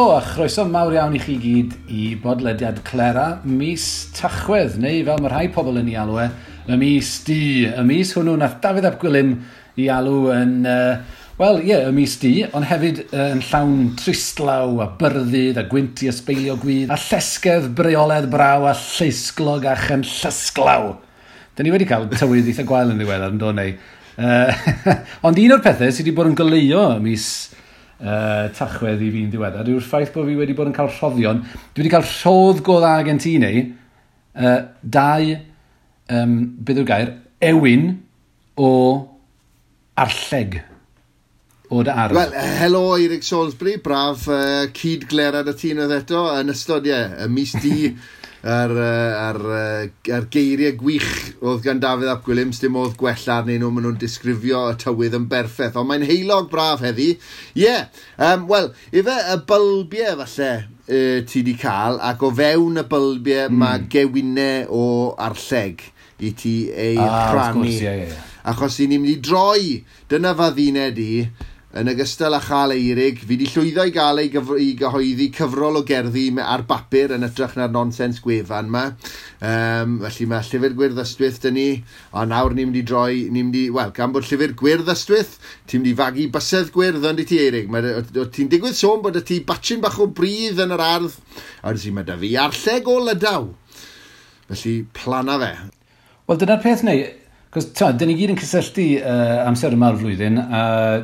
Helo a chroeso mawr iawn i chi gyd i bodlediad Clera mis Tachwedd, neu fel mae rhai pobl yn ei alw e, y mis du. Y mis hwnnw nath Dafydd ap Gwilym i alw yn, wel ie, y mis du, ond hefyd yn llawn tristlaw a byrddyd a gwynt i ysbeilio gwydd a llesgedd breoledd braw a lleisglog a chynllysglaw. Dyn ni wedi cael tywydd eitha gwael yn ddiweddar, yn do neu. Ond un o'r pethau sydd wedi bod yn goleuo y mis Tachwedd i fi'n ddiweddar yw'r ffaith bod fi wedi bod yn cael rhoddion. Dwi wedi cael rhodd go dda gen ti neu dau, beth yw'r gair, ewin o arlleg o dy ardd. Wel, helo Eirig Salisbury, braf cyd-glerad y tîn oedd eto yn ystod, ie, y mis du a'r geiriau gwych oedd gan Dafydd ap Gwilym, dim modd gwella arnyn nhw, maen nhw'n disgrifio y tywydd yn berffaith, ond mae'n heulog braf heddi. Ie, yeah, wel, ife y bylbiau falle ti di cael, ac o fewn y bylbiau mae gewinau o arlleg i ti ei rhannu. Wrth gwrs, ie, ie, ie. Achos i ni'n mynd i droi, dyna fadduned i, yn ogystal â chael Eirig, fi di llwyddo i gael ei i gyhoeddi cyfrol o gerddi ar bapur yn hytrach na'r nonsens gwefan yma. Felly mae Llyfr Gwyrdd Ystwyth dyn ni, a nawr ni'n mynd i droi, ni'n mynd i, wel, gan bod Llyfr Gwyrdd Ystwyth, ti'n mynd i fagu bysedd gwyrdd ond i ti, Eirig. Ti'n digwydd sôn bod y ti batchyn bach o bridd yn yr ardd, a wedyn mae da fi arlleg o Lydaw. Felly, plana fe. Wel, dyna'r peth neu, cos dyn ni gyd yn cysylltu amser yma'r flwyddyn a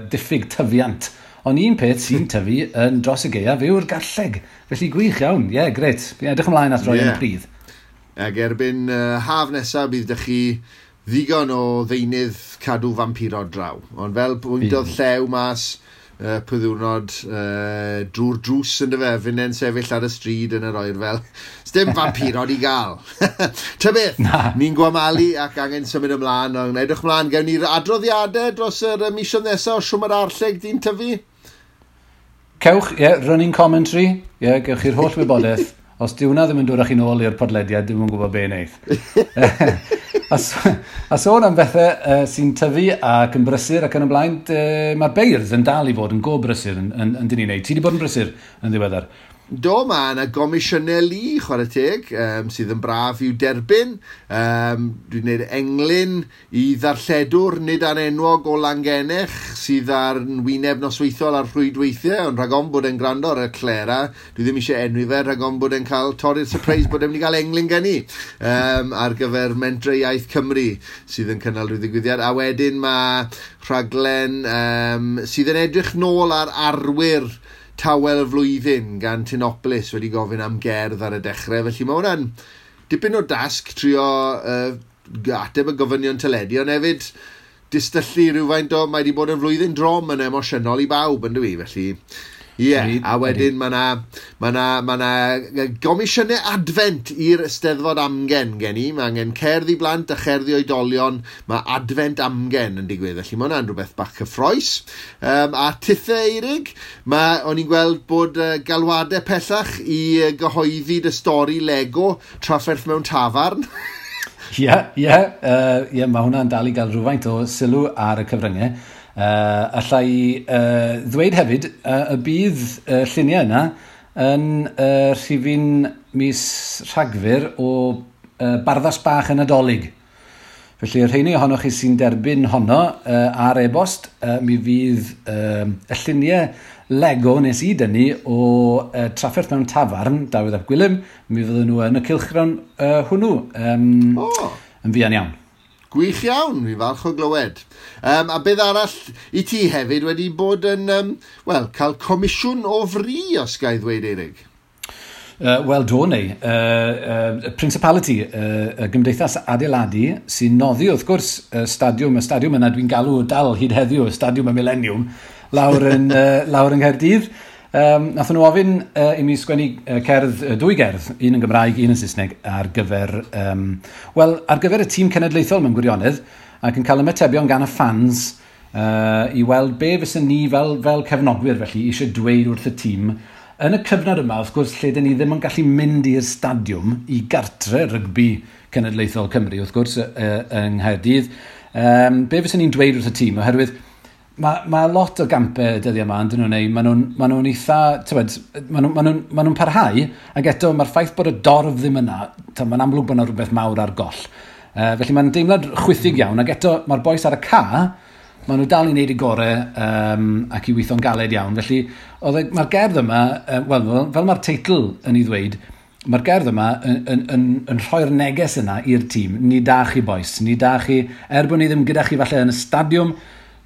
diffyg tyfiant. Ond un peth sy'n tyfu yn dros y gaeaf yw'r garlleg. Felly gwych iawn, ie, yeah, grêt. Fi'n edrych ymlaen at roi yn y pridd. Ac erbyn haf nesaf bydd dych chi ddigon o ddeunydd cadw fampirod draw. Ond fel bwyntodd llew mas pwy ddiwrnod drwy'r drws yn dyfe, finnau'n sefyll ar y stryd yn yr oerfel. Sdim fampirod i gael. Ta beth, ni'n gwamalu ac angen symud ymlaen, ond edrych ymlaen, gewn ni'r adroddiadau dros yr misoedd nesaf o siwm yr arlleg di'n tyfu? Cewch, ie, yeah, running commentary, ie, yeah, gewch chi'r holl wybodaeth. Os di hwnna ddim yn dod â chi nôl i'r podlediad, ddim yn gwybod be wneith. A sôn am bethau sy'n tyfu ac yn brysur ac yn y blaen, mae'r beirdd yn dal i fod yn go brysur yn dyn ni'n neud. Ti wedi bod yn brysur yn ddiweddar? Do, mae yna gomisiynau lu, chwarae teg, sydd yn braf i'w derbyn. Dwi'n gwneud englyn i ddarlledwr nid anenwog o Langenech sydd ar wyneb nosweithiol ar rhwydweithiau, ond rhag ofn bod e'n gwrando ar y Clera, dwi ddim eisiau enwi fe, rhag ofn bod e'n cael torri'r surprise bod e'n mynd i gael englyn gen i ar gyfer Mentrau Iaith Cymru sydd yn cynnal rhyw ddigwyddiad. A wedyn mae rhaglen sydd yn edrych nôl ar arwyr tawel y flwyddyn gan Tinopolis wedi gofyn am gerdd ar y dechrau. Felly mae hwnna'n dipyn o dasg trio ateb y gofynion teledu, ond hefyd distyllu rhywfaint o, mae wedi bod yn flwyddyn drom yn emosiynol i bawb, yn dwi, felly ie, yeah. A wedyn mae 'na gomisiynau adfent i'r Eisteddfod Amgen gen i. Mae angen cerdd i blant a cherdd i oedolion. Mae adfent amgen yn digwydd, felly mae hwnna'n rhywbeth bach cyffrous. A tithe, Eirig, o'n i'n gweld bod galwadau pellach i gyhoeddi dy stori Lego trafferth mewn tafarn. Ie, ie, ie, mae hwnna'n dal i gael rhywfaint o sylw ar y cyfryngau. Alla i ddweud hefyd y bydd lluniau yna yn rhifyn mis Rhagfyr o Barddas Bach yn Nadolig. Felly, y rheini ohonoch chi sy'n derbyn honno ar e-bost, mi fydd y lluniau Lego nes i dynnu o trafferth mewn tafarn, Dafydd ap Gwilym, mi fydden nhw yn y cylchgrawn hwnnw yn fuan iawn. Gwych iawn, fi falch o glywed. A beth arall i ti hefyd wedi bod yn, wel, cael comisiwn o fri, os ga i ddweud, Eirig? Wel, do neu. Principality, y Gymdeithas Adeiladu, sy'n noddi, wrth gwrs, y stadiwm yna dwi'n galw dal hyd heddiw, y stadiwm y Millennium, lawr yn Nghaerdydd. Nathon nhw ofyn i mi sgwennu cerdd, dwy gerdd, un yn Gymraeg, un yn Saesneg, ar gyfer, ar gyfer y tîm cenedlaethol mewn gwirionedd, ac yn cael ymatebion gan y fans i weld be fysen ni fel cefnogwyr felly eisiau dweud wrth y tîm. Yn y cyfnod yma, wrth gwrs, lle dyn ni ddim yn gallu mynd i'r stadiwm i gartre rygbi cenedlaethol Cymru, wrth gwrs, yng Nghaerdydd, be fysen ni'n dweud wrth y tîm, oherwydd Mae lot o gampau dyddiau yma, yn dyn nhw'n ei, maen nhw'n eitha, tywed, maen nhw'n parhau, ac eto mae'r ffaith bod y dorf ddim yna, mae'n amlwg bod yna rhywbeth mawr ar goll. Felly mae'n deimlad chwithig iawn, ac eto mae'r bois ar y ca, maen nhw dal i wneud eu gorau ac i weithio'n galed iawn. Felly mae'r gerdd yma, wel, fel mae'r teitl yn ei ddweud, mae'r gerdd yma yn rhoi'r neges yna i'r tîm. Ni da chi bois, ni da chi, er bod ni ddim gyda chi falle yn y stadiwm,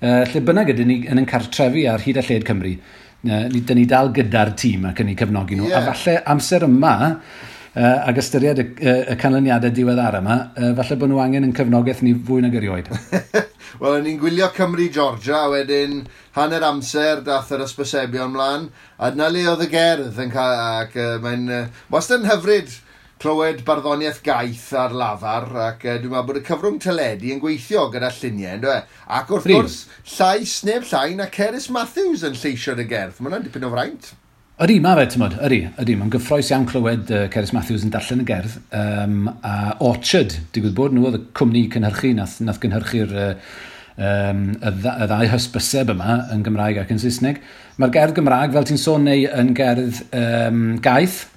lle bynnag ydyn ni yn ein cartrefi ar hyd a lled Cymru, dyn ni dal gyda'r tîm ac yn eu cefnogi nhw. Yeah. A falle amser yma, ac ystyried y canlyniadau diweddar yma, falle bod nhw angen yn cefnogaeth ni fwy nag erioed. Wel, o'n i'n gwylio Cymru-Georgia, a wedyn hanner amser dath yr ysbysebion mlaen, a dyna le oedd y gerdd yn cael, ac mae'n wastad yn hyfryd clywed barddoniaeth gaeth ar lafar, ac dwi'n meddwl bod y cyfrwng teledu yn gweithio gyda lluniau, ynddo e? Ac wrth gwrs, llais neb llai na Cerys Matthews yn lleisio'r y gerdd. Mae hwnna'n dipyn o fraint. Ydy, mae fe, ti'n modd, ydy. Mae'n gyffrous iawn clywed Cerys Matthews yn darllen y gerdd. A Orchard, digwydd bod nhw oedd y cwmni cynhyrchu, nath gynhyrchu'r y ddau hysbyseb yma yn Gymraeg ac yn Saesneg. Mae'r gerdd Gymraeg, fel ti'n sôn, neu yn gerdd gaeth.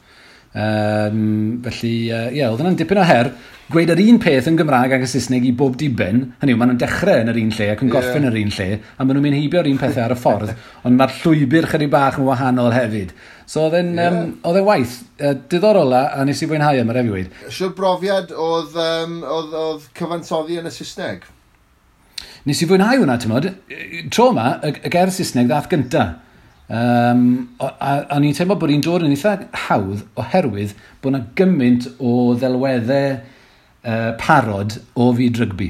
Felly, ie, oedd yna'n dipyn o her. Gweud yr un peth yn Gymraeg ac yn Saesneg i bob diben, hynny yw, maen nhw'n dechrau yn yr un lle ac yn gorffen yn yr un lle, a maen nhw'n mynd heibio'r un pethau ar y ffordd, ond mae'r llwybr chydig bach yn wahanol hefyd. So oedd e'n waith diddorol a nes i fwynhau am yr efo weud. Siwr brofiad oedd cyfansoddi yn y Saesneg? Nes i fwynhau hwnna, ti'n modd. Tro yma, y gerdd Saesneg ddath gynta. A ni'n teimlo bod hi'n dod yn eitha hawdd oherwydd bod yna gymaint o ddelweddau parod o fyd rygbi.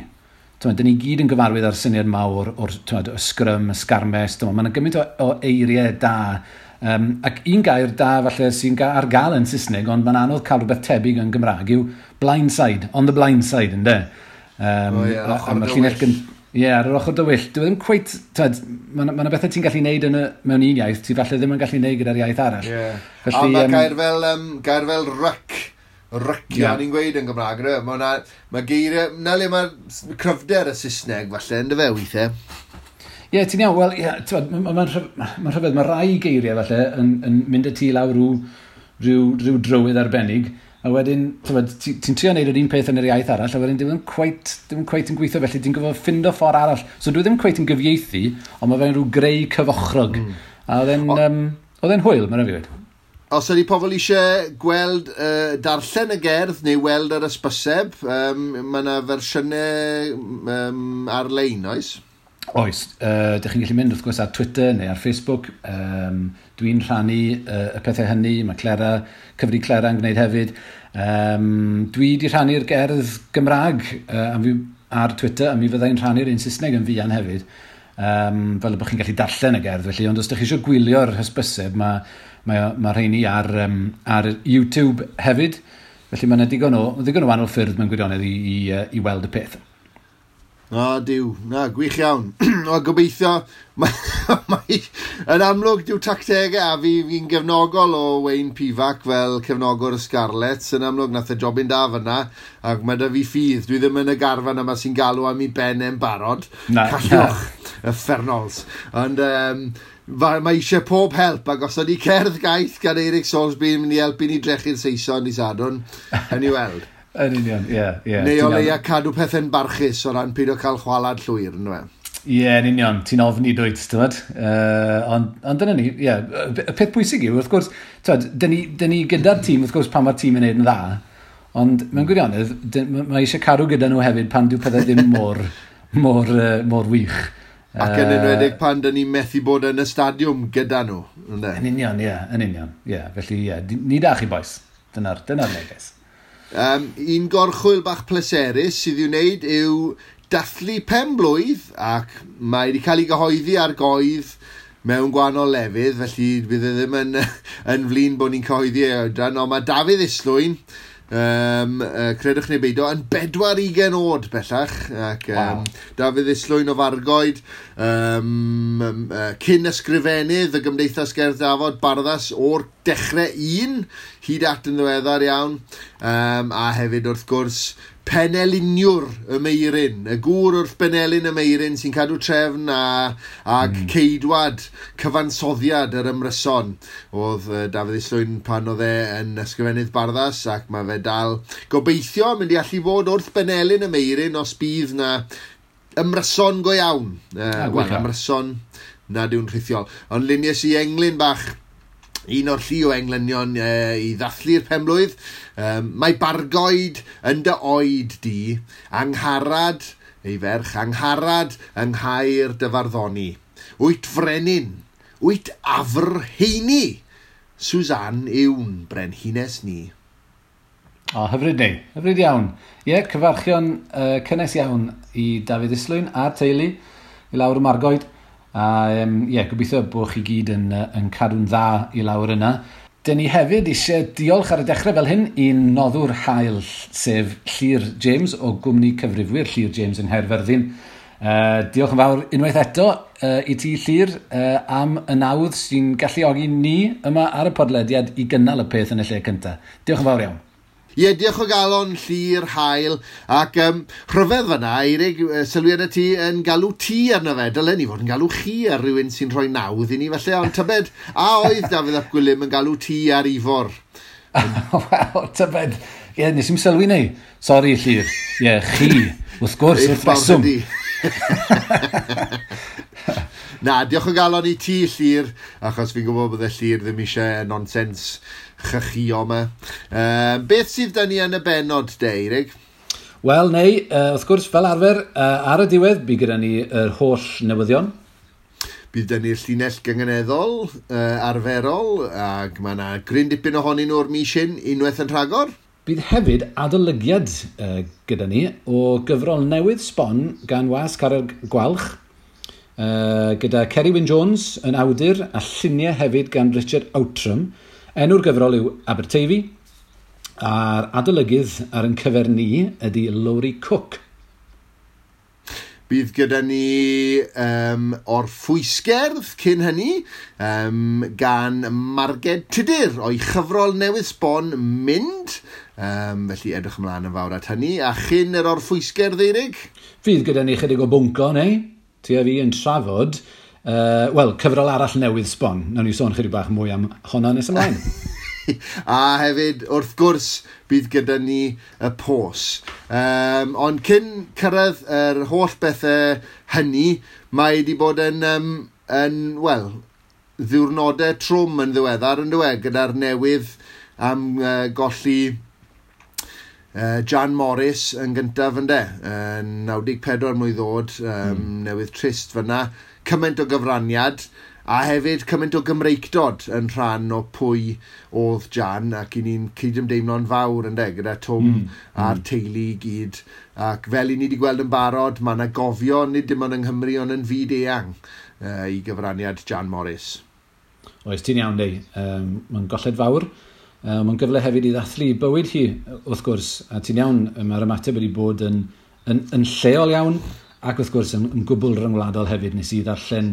Dyn ni gyd yn gyfarwydd â'r syniad mawr o'r y sgrym, y sgarmes, mae yna gymaint o eiriau da. Ac un gair da falle sy'n ar gael yn Saesneg, ond mae'n anodd cael rhywbeth tebyg yn Gymraeg, yw blindside, on the blindside, ynde? A mae'r llinell Ie, ar yr ochr dywyll. Dwi ddim cweit, mae yna bethau ti'n gallu neud mewn un iaith, ti falle ddim yn gallu neud gyda'r iaith arall. Yeah. Felly, a mae gair fel ryc, rycio, yeah, ni'n gweud yn Gymraeg, mae geiriau, na le mae cryfder y Saesneg falle, ynddo fe weithiau? Ie, ti'n iawn, wel, ie, mae'n rhyfedd, mae rai geiriau falle yn mynd y tu lawr rhyw drywydd arbennig, a wedyn, ti'n trio wneud yr un peth yn yr iaith arall, a wedyn ddim cweit yn gweithio, felly ti'n gorfod ffindo ffordd arall. So dwi ddim cweit yn gyfieithu, ond mae fe'n rhyw greu cyfochrog. A oedd e'n hwyl, mae'n rhaid fi weud. Os ydy pobl eisiau gweld, darllen y gerdd neu weld yr ysbyseb, mae yna fersiynau ar-lein, oes? Oes. Dych chi'n gallu mynd wrth gwrs ar Twitter neu ar Facebook. Dwi'n rhannu y pethau hynny. Mae Clera, cyfri Clera yn gwneud hefyd. Dwi wedi rhannu'r gerdd Gymraeg ar Twitter, a mi fyddai'n rhannu'r un Saesneg yn fuan hefyd. Fel y bod chi'n gallu darllen y gerdd. Felly, ond os ydych chi eisiau gwylio'r hysbyseb, mae rheini ar YouTube hefyd. Felly mae yna digon o wahanol ffyrdd mewn gwirionedd i weld y peth. O, diw. Na, gwych iawn. O, gobeithio, mae, yn amlwg, diw tactegau, a fi'n gefnogol o Wayne Pivac fel cefnogwr y Scarlets. Yn amlwg, nath e jobyn da fyna, ac mae da fi ffydd. Dwi ddim yn y garfan yma sy'n galw am ei ben e'n barod. Na. Callwch, uffernals. Ond mae eisiau pob help, ac os ydy cerdd gaeth gan Eirig Soulsby yn mynd i helpu ni drechu'r Saeson i Sadwrn, yn i weld. Yn union, ie. Yeah. Neu o leia cadw pethau'n barchus o ran peidio cael chwalad llwyr, ynddo fe? Ie, yn union. Ti'n ofni dwyt, ti'n gwbod? Ond dyna ni, ie. Y peth pwysig yw, wrth gwrs, dyn ni gyda'r tîm, wrth gwrs, pan mae'r tîm yn neud yn dda, ond mewn gwirionedd, mae eisiau cadw gyda nhw hefyd pan dyw pethau ddim mor wych. Ac yn enwedig pan dyn ni'n methu bod yn y stadiwm gyda nhw. Yn union, ie. Yn union, ie. Felly, ie, ni da chi, boys. Dyna'r neges. Un gorchwyl bach pleserus sydd i'w wneud yw dathlu pen-blwydd, ac mae wedi cael ei gyhoeddi ar goedd mewn gwahanol lefydd, felly bydd e ddim yn flin bod ni'n cyhoeddi ei oedran, ond mae Dafydd Islwyn, credwch neu beidio, yn 24 oed bellach, ac wow. Dafydd Islwyn o Fargoed, cyn ysgrifennydd y Gymdeithas Gerdd Dafod, barddas o'r dechrau un, hyd at yn ddiweddar iawn, a hefyd wrth gwrs Peneliniwr y Meiryn, y gŵr wrth benelin y Meiryn sy'n cadw trefn ag ceidwad cyfansoddiad yr ymryson oedd Dafydd Islwyn pan oedd e yn ysgrifennydd Barddas, ac mae fe dal gobeithio mynd i allu fod wrth benelin y Meiryn os bydd na ymryson go iawn. Wel, ymryson nad yw'n rhithiol. Ond lunies i englyn bach, un o'r llu o englynion i ddathlu'r penblwydd. Mae bargoed yn dy oed di, Angharad, ei ferch, Angharad yng Nghaer dy farddoni. Wyt frenin, wyt afr heini, Suzanne yw'n brenhines ni. O, hyfryd neu, hyfryd iawn. Ie, cyfarchion cynnes iawn i Dafydd Islwyn a'r teulu i lawr y Margoed. A ie, gobeithio bod chi gyd yn cadw'n dda i lawr yna. Dyn ni hefyd eisiau diolch ar y dechrau fel hyn i'n noddwr hael, sef Llyr James o gwmni cyfrifwyr Llyr James yng Nghaerfyrddin. Diolch yn fawr unwaith eto i ti, Llyr, am y nawdd sy'n galluogi ni yma ar y podlediad i gynnal y peth yn y lle cyntaf. Diolch yn fawr iawn. Ie, diolch o galon, Llyr, hael, ac rhyfedd fyna, Eirig, sylwi arna ti yn galw ti arno fe. Dylen ni fod yn galw chi ar rhywun sy'n rhoi nawdd i ni, falle, ond tybed, a oedd Dafydd ap Gwilym yn galw ti ar Ifor? Wel, tybed, ie, nes i'm sylwi neu. Sori, Llyr. Ie, chi, wrth gwrs, wrth reswm. Na, diolch o galon i ti, Llyr, achos fi'n gwybod bod y Llyr ddim eisiau nonsens chychio yma. Beth sydd da ni yn y bennod, de, Eirig? Wel, neu, wrth gwrs, fel arfer, ar y diwedd, bydd gyda ni yr holl newyddion. Bydd da ni'r llinell gynganeddol arferol, ac mae yna gryn dipyn ohonyn nhw'r mis hyn unwaith yn rhagor. Bydd hefyd adolygiad gyda ni o gyfrol newydd sbon gan Wasg Carreg Gwalch, gyda Ceri Wyn Jones yn awdur a lluniau hefyd gan Richard Outram. Enw'r gyfrol yw Aberteifi, a'r adolygydd ar ein cyfer ni ydy Lowri Cook. Bydd gyda ni orffwysgerdd cyn hynny gan Marged Tudur o'i chyfrol newydd sbon Mynd. Felly edrych ymlaen yn fawr at hynny. A chyn yr orffwysgerdd, Eirig? Fydd gyda ni chydig o bwnco, neu? Ti a fi yn trafod, wel, cyfrol arall newydd sbon. Nawn ni sôn chydig bach mwy am honna nes ymlaen. A hefyd, wrth gwrs, bydd gyda ni y pos. Ond cyn cyrraedd yr holl bethau hynny, mae wedi bod yn, wel, ddiwrnodau trwm yn ddiweddar, yn dywe, gyda'r newydd am golli Jan Morris yn gyntaf, ynde, 94 mlwydd oed, newydd trist fyna, cymaint o gyfraniad, a hefyd cymaint o Gymreictod yn rhan o pwy oedd Jan, ac i ni'n cydymdeimlo'n fawr, ynde, gyda Twm a'r teulu i gyd. Ac fel i ni wedi gweld yn barod, mae yna gofio, nid dim ond yng Nghymru, ond yn fyd eang i gyfraniad Jan Morris. Oes, ti'n iawn, Dei. Mae'n golled fawr. Mae'n gyfle hefyd i ddathlu bywyd hi, wrth gwrs, a ti'n iawn, mae'r ymateb wedi bod yn lleol iawn, ac wrth gwrs yn gwbl ryngwladol hefyd. Nes i ddarllen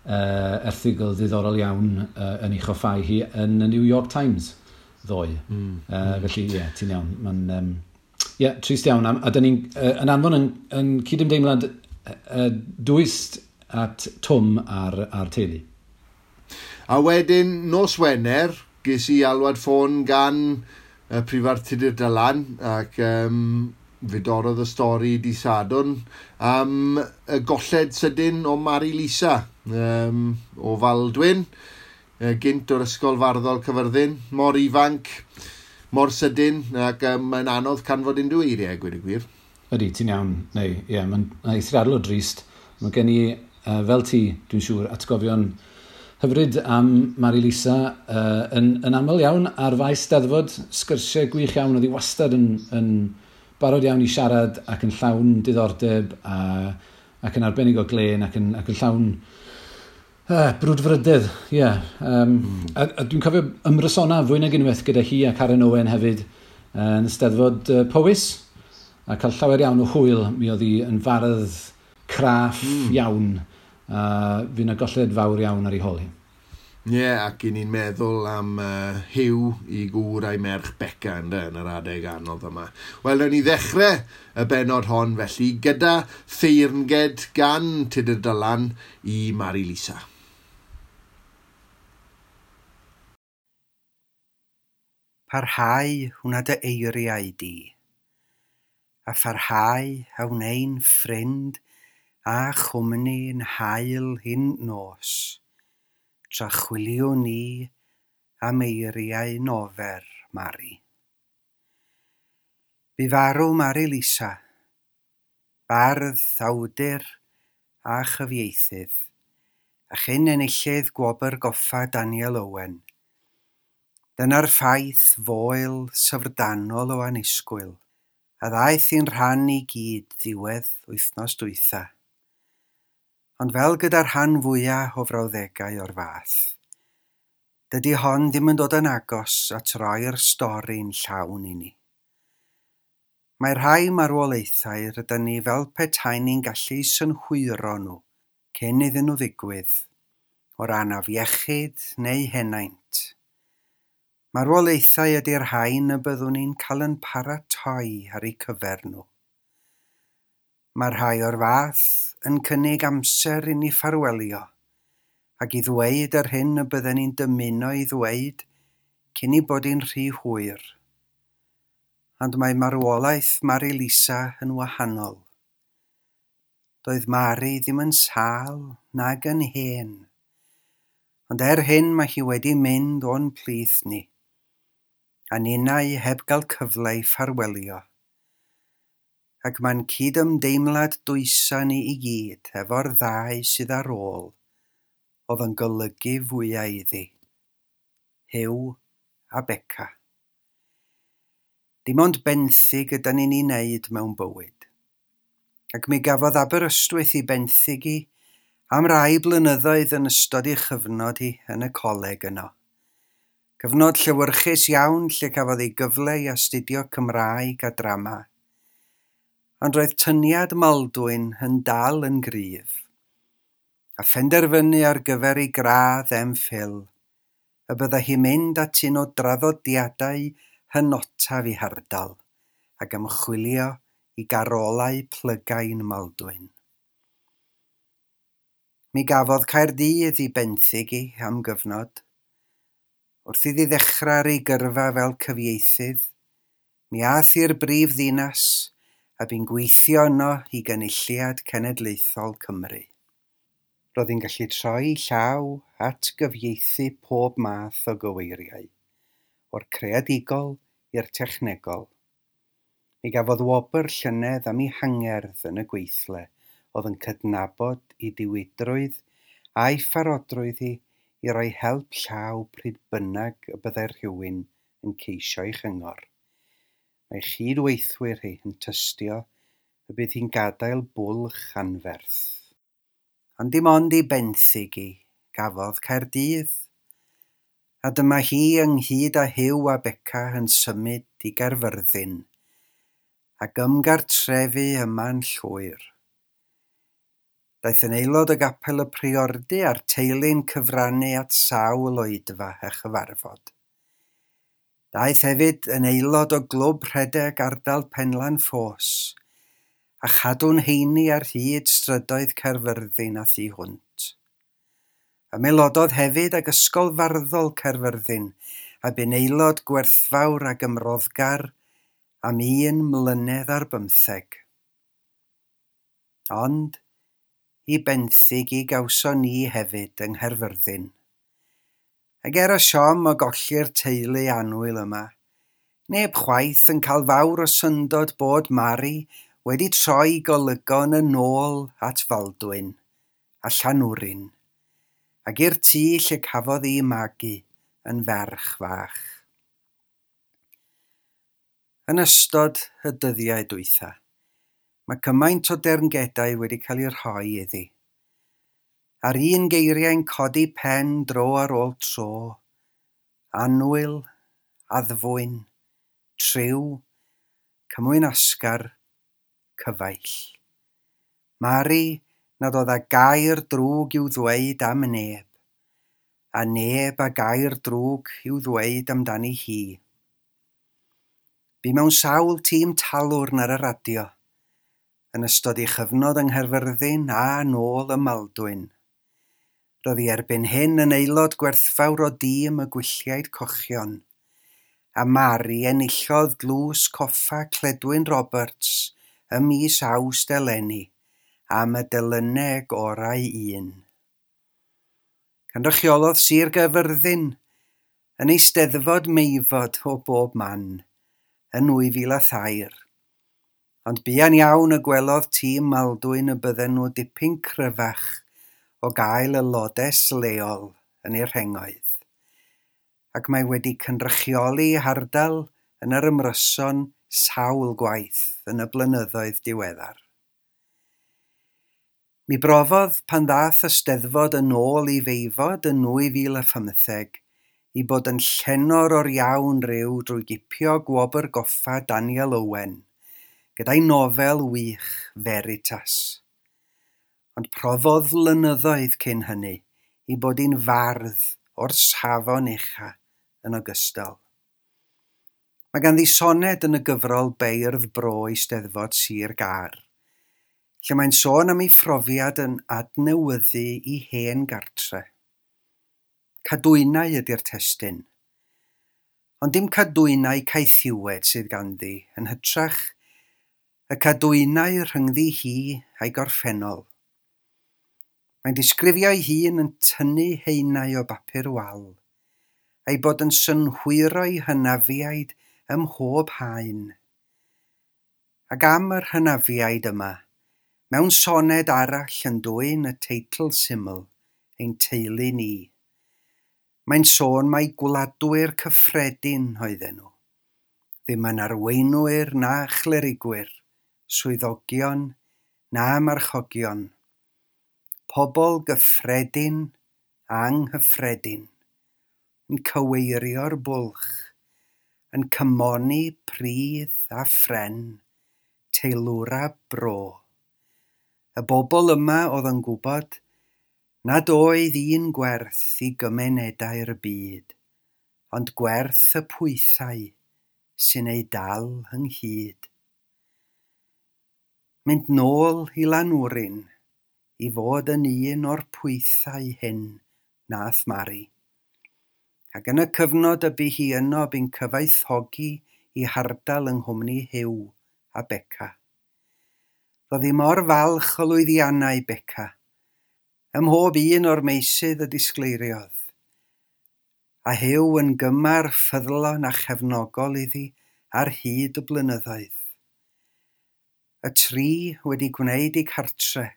erthygl ddiddorol iawn yn ei choffau hi yn y New York Times ddoe. Felly, ie, ti'n iawn. Mae'n, ie, trist iawn. A dyn ni'n yn anfon yn cydymdeimlad dwys at Twm a'r teulu. A wedyn, nos Wener, ges i alwad ffôn gan y Prifardd Tudur Dylan, ac fe dorrodd y stori di Sadwrn am y golled sydyn o Mari Lisa o Faldwyn, gynt o'r Ysgol Farddol Cyfyrddin, mor ifanc, mor sydyn, ac mae'n anodd canfod unrhyw eiriau, gweud y gwir. Ydy, ti'n iawn. Neu, ie, mae'n eithriadol o drist. Mae gen i, fel ti, dwi'n siŵr, atgofion hyfryd am Mari Lisa yn aml iawn ar faes Steddfod, sgyrsiau gwych iawn, oedd hi wastad yn barod iawn i siarad ac yn llawn diddordeb ac yn arbennig o glên ac yn llawn brwdfrydedd, ie. Yeah. A dwi'n cofio ymrysona fwy nag unwaith gyda hi a Karen Owen hefyd yn Steddfod Powys, a cael llawer iawn o hwyl. Mi oedd hi yn fardd craff iawn, a fydd yna golled fawr iawn ar ei hôl hi. Ie, yeah, ac i ni'n meddwl am Huw i gŵr a'i merch Beca ynde, yn yr adeg anodd yma. Wel, newn ni ddechrau y bennod hon felly gyda theyrnged gan Tudur Dylan i Mari Lisa. Parhau hwnna dy eiriau di, a pharhau a wnei'n ffrind a chwmni'n haul hyn nos, tra chwiliwn ni am eiriau nofer Mari. Bu farw Mari Lisa, bardd, awdur a chyfieithydd, a chyn enillydd gwobr goffa Daniel Owen. Dyna'r ffaith foel syfrdanol o annisgwyl, a ddaeth i'n rhan i gyd ddiwedd wythnos dwytha. Ond fel gyda'r rhan fwyaf o frawddegau o'r fath, dydy hon ddim yn dod yn agos at roi'r stori'n llawn i ni. Mae rhai marwolaethau rydyn ni fel petai ni'n gallu synhwyro nhw cyn iddyn nhw ddigwydd, o ran afiechyd neu henaint. Marwolaethau ydy'r rhain y byddwn ni'n cael yn paratoi ar eu cyfer nhw. Mae rhai o'r fath yn cynnig amser i ni ffarwelio ac i ddweud yr hyn y bydden ni'n dymuno i ddweud cyn i bod hi'n rhy hwyr. Ond mae marwolaeth Mari Lisa yn wahanol. Doedd Mari ddim yn sâl nag yn hen. Ond er hyn mae hi wedi mynd o'n plith ni, a ninnau heb gael cyfle i ffarwelio. Ac mae'n cydymdeimlad dwysa ni i gyd efo'r ddau sydd ar ôl oedd yn golygu fwyaf iddi, Huw a Beca. Dim ond benthyg ydan ni'n ei wneud mewn bywyd. Ac mi gafodd Aberystwyth ei benthyg hi am rai blynyddoedd yn ystod ei chyfnod hi yn y coleg yno. Cyfnod llewyrchus iawn lle cafodd ei gyfle i astudio Cymraeg a drama. Ond roedd tyniad Maldwyn yn dal yn gryf, a phenderfynu ar gyfer ei gradd MPhil, y byddai hi'n mynd at un o draddodiadau hynotaf ei hardal ac ymchwilio i garolau plygain Maldwyn. Mi gafodd Caerdydd ei benthyg hi am gyfnod. Wrth iddi ddechrau ar ei gyrfa fel cyfieithydd, mi aeth i'r brif ddinas a bu'n gweithio yno i Gynulliad Cenedlaethol Cymru. Roedd hi'n gallu troi llaw at gyfieithu pob math o gyweiriau, o'r creadigol i'r technegol. Mi gafodd wobr llynedd am ei hangerdd yn y gweithle oedd yn cydnabod ei diwydrwydd a'i pharodrwydd hi i roi help llaw pryd bynnag y byddai rhywun yn ceisio ei chyngor. Mae chydweithwyr hi yn tystio y bydd hi'n gadael bwlch anferth. Ond dim ond ei benthyg hi gafodd Caerdydd. A dyma hi ynghyd â Huw a Beca yn symud i Gaerfyrddin ac ymgartrefu yma'n llwyr. Daeth yn aelod o gapel y Priordy a'r teulu'n cyfrannu at sawl oedfa a chyfarfod. Daeth hefyd yn aelod o glwb rhedeg ardal Penlan Ffos a chadw'n heini ar hyd strydoedd Caerfyrddin a thu hwnt. Ymaelododd hefyd ag Ysgol Farddol Caerfyrddin a bu'n aelod gwerthfawr ac ymroddgar am 1 mlynedd ar 15. Ond i benthyg i gawson ni hefyd yng Nghaerfyrddin. Ac er y siom o golli'r teulu annwyl yma, neb chwaith yn cael fawr o syndod bod Mari wedi troi golygon yn ôl at Faldwyn a Llanwrin, ac i'r tŷ lle cafodd ei magu yn ferch fach. Yn ystod y dyddiau dwytha, mae cymaint o deyrngedau wedi cael eu rhoi iddi. A'r un geiriau'n codi pen dro ar ôl tro, annwyl, addfwyn, triw, cymwynasgar, cyfaill. Mari nad oedd â gair drwg i'w ddweud am neb, A neb a gair drwg i'w ddweud amdani hi. Bu mewn sawl tîm talwrn ar y radio, yn ystod ei chyfnod yng Nghaerfyrddin a nôl ym Maldwyn. Roedd hi erbyn hyn yn aelod gwerthfawr o dîm y Gwylliaid Cochion, a Mari enillodd Dlws Coffa Cledwyn Roberts ym mis Awst eleni am y delyneg orau un. Cynrychiolodd Sir Gaerfyrddin yn Eisteddfod Meifod o bob man yn 2003. Ond buan iawn y gwelodd tîm Maldwyn y bydden nhw dipyn cryfach o gael y lodes leol yn ei rhengoedd. Ac mae wedi cynrychioli hardal yn yr ymryson sawl gwaith yn y blynyddoedd diweddar. Mi brofodd pan ddath y Steddfod yn ôl i Feifod yn 2015 i bod yn llenor o'r iawn ryw drwy gipio gwobr goffa Daniel Owen gyda'i nofel wych Veritas. Ond profodd flynyddoedd cyn hynny i bod hi'n fardd o'r safon ucha yn ogystal. Mae ganddi soned yn y gyfrol Beirdd Bro Eisteddfod Sir Gâr, lle mae'n sôn am ei phrofiad yn adnewyddu i hen gartre. Cadwynau ydy'r testun. Ond dim cadwynau caethiwed sydd ganddi, yn hytrach y cadwynau rhyngddi hi a'i gorffennol. Mae'n disgrifio ei hun yn tynnu haenau o bapur wal, a'i bod yn synhwyro'i hynafiaid ym mhob haen. Ac am yr hynafiaid yma, mewn soned arall yn dwyn y teitl syml, ein teulu ni. Mae'n sôn mai gwladwyr cyffredin oedden nhw, ddim yn arweinwyr na chlerigwyr, swyddogion na marchogion. Pobl gyffredin, anghyffredin, yn cyweirio'r bwlch, yn cymoni pridd a phren, teilwra bro. Y bobl yma oedd yn gwybod nad oedd un gwerth i gymunedau'r byd, ond gwerth y pwythau sy'n ei dal ynghyd. Mynd nôl i Lanwrin i fod yn un o'r pwythau hyn nath Mari. Ac yn y cyfnod y bu hi yno bu'n cyfoethogi i hardal yng nghwmni Huw a Beca. Roedd hi mor falch o lwyddiannau Beca, ym mhob un o'r meysydd y disgleiriodd, a Huw yn gymar ffyddlon a chefnogol iddi ar hyd y blynyddoedd. Y tri wedi gwneud eu cartre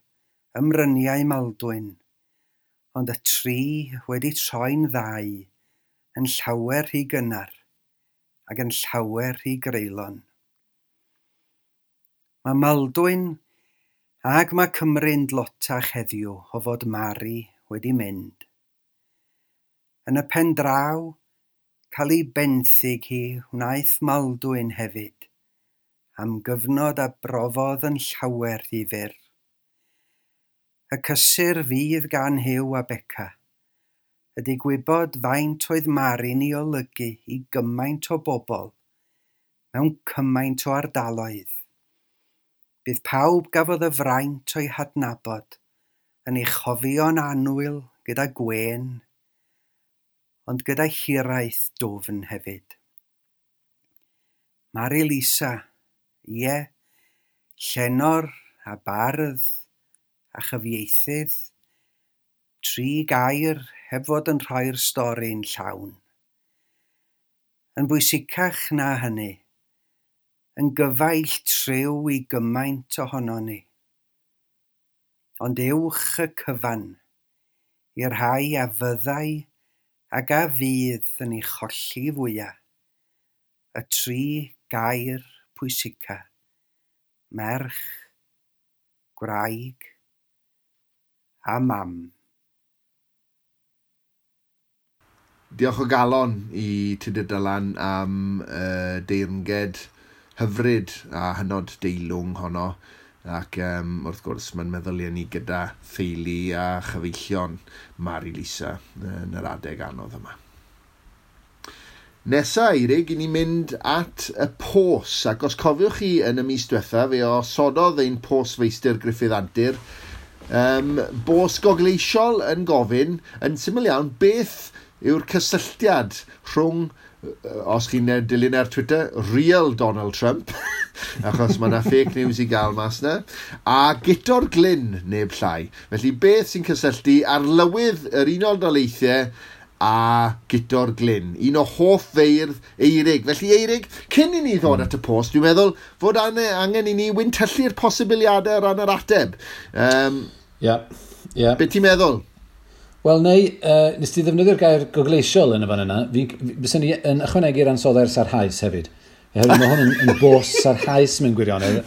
ym Mryniau Maldwyn, ond y tri wedi troi'n ddau yn llawer rhy gynnar ac yn llawer rhy greulon. Mae Maldwyn ag mae Cymru'n dlotach heddiw o fod Mari wedi mynd. Yn y pen draw, cael ei benthyg hi wnaeth Maldwyn hefyd, am gyfnod a brofodd yn llawer rhy fyr. Y cysur fydd gan Huw a Beca ydy gwybod faint oedd Mari'n ei olygu i gymaint o bobl mewn cymaint o ardaloedd. Bydd pawb gafodd y fraint o'i hadnabod yn ei chofio'n annwyl gyda gwên, ond gyda hiraeth dwfn hefyd. Mari Lisa, ie, llenor a bardd a chyfieithydd, tri gair heb fod yn rhoi'r stori'n llawn. Yn bwysicach na hynny, yn gyfaill triw i gymaint ohonon ni. Ond uwch y cyfan, i'r rhai a fyddai ac a fydd yn ei cholli fwyaf, y tri gair pwysica, merch, gwraig a mam. Diolch o galon i Tudur Dylan am deyrnged hyfryd a hynod deilwng honno. Ac wrth gwrs, mae'n meddyliau ni gyda theulu a chyfeillion Mari Lisa yn yr adeg anodd yma. Nesa, Eirig, i ni mynd at y pos, ac os cofiwch chi yn y mis diwetha, fe osododd ein posfeistr Gruffydd Antur, bos gogleisiol yn gofyn, yn syml iawn, beth yw'r cysylltiad rhwng, os chi'n dilyn ar Twitter, real Donald Trump, achos mae yna fake news i gael mas yna, a Guto'r Glyn, neb llai. Felly beth sy'n cysylltu arlywydd yr Unol Daleithiau a Guto'r Glyn, un o hoff feirdd Eirig. Felly Eirig, cyn i ni ddod at y post, dwi'n meddwl fod angen i ni wyntyllu'r posibiliadau o ran yr ateb. Ie. Be ti'n meddwl? Wel, neu, nes ti ddefnyddio'r gair gogleisiol yn y fan yna, fyswn ni yn ychwanegu'r ansoddair sarhaus hefyd. Oherwydd mae hwn yn bos sarhaus mewn gwirionedd,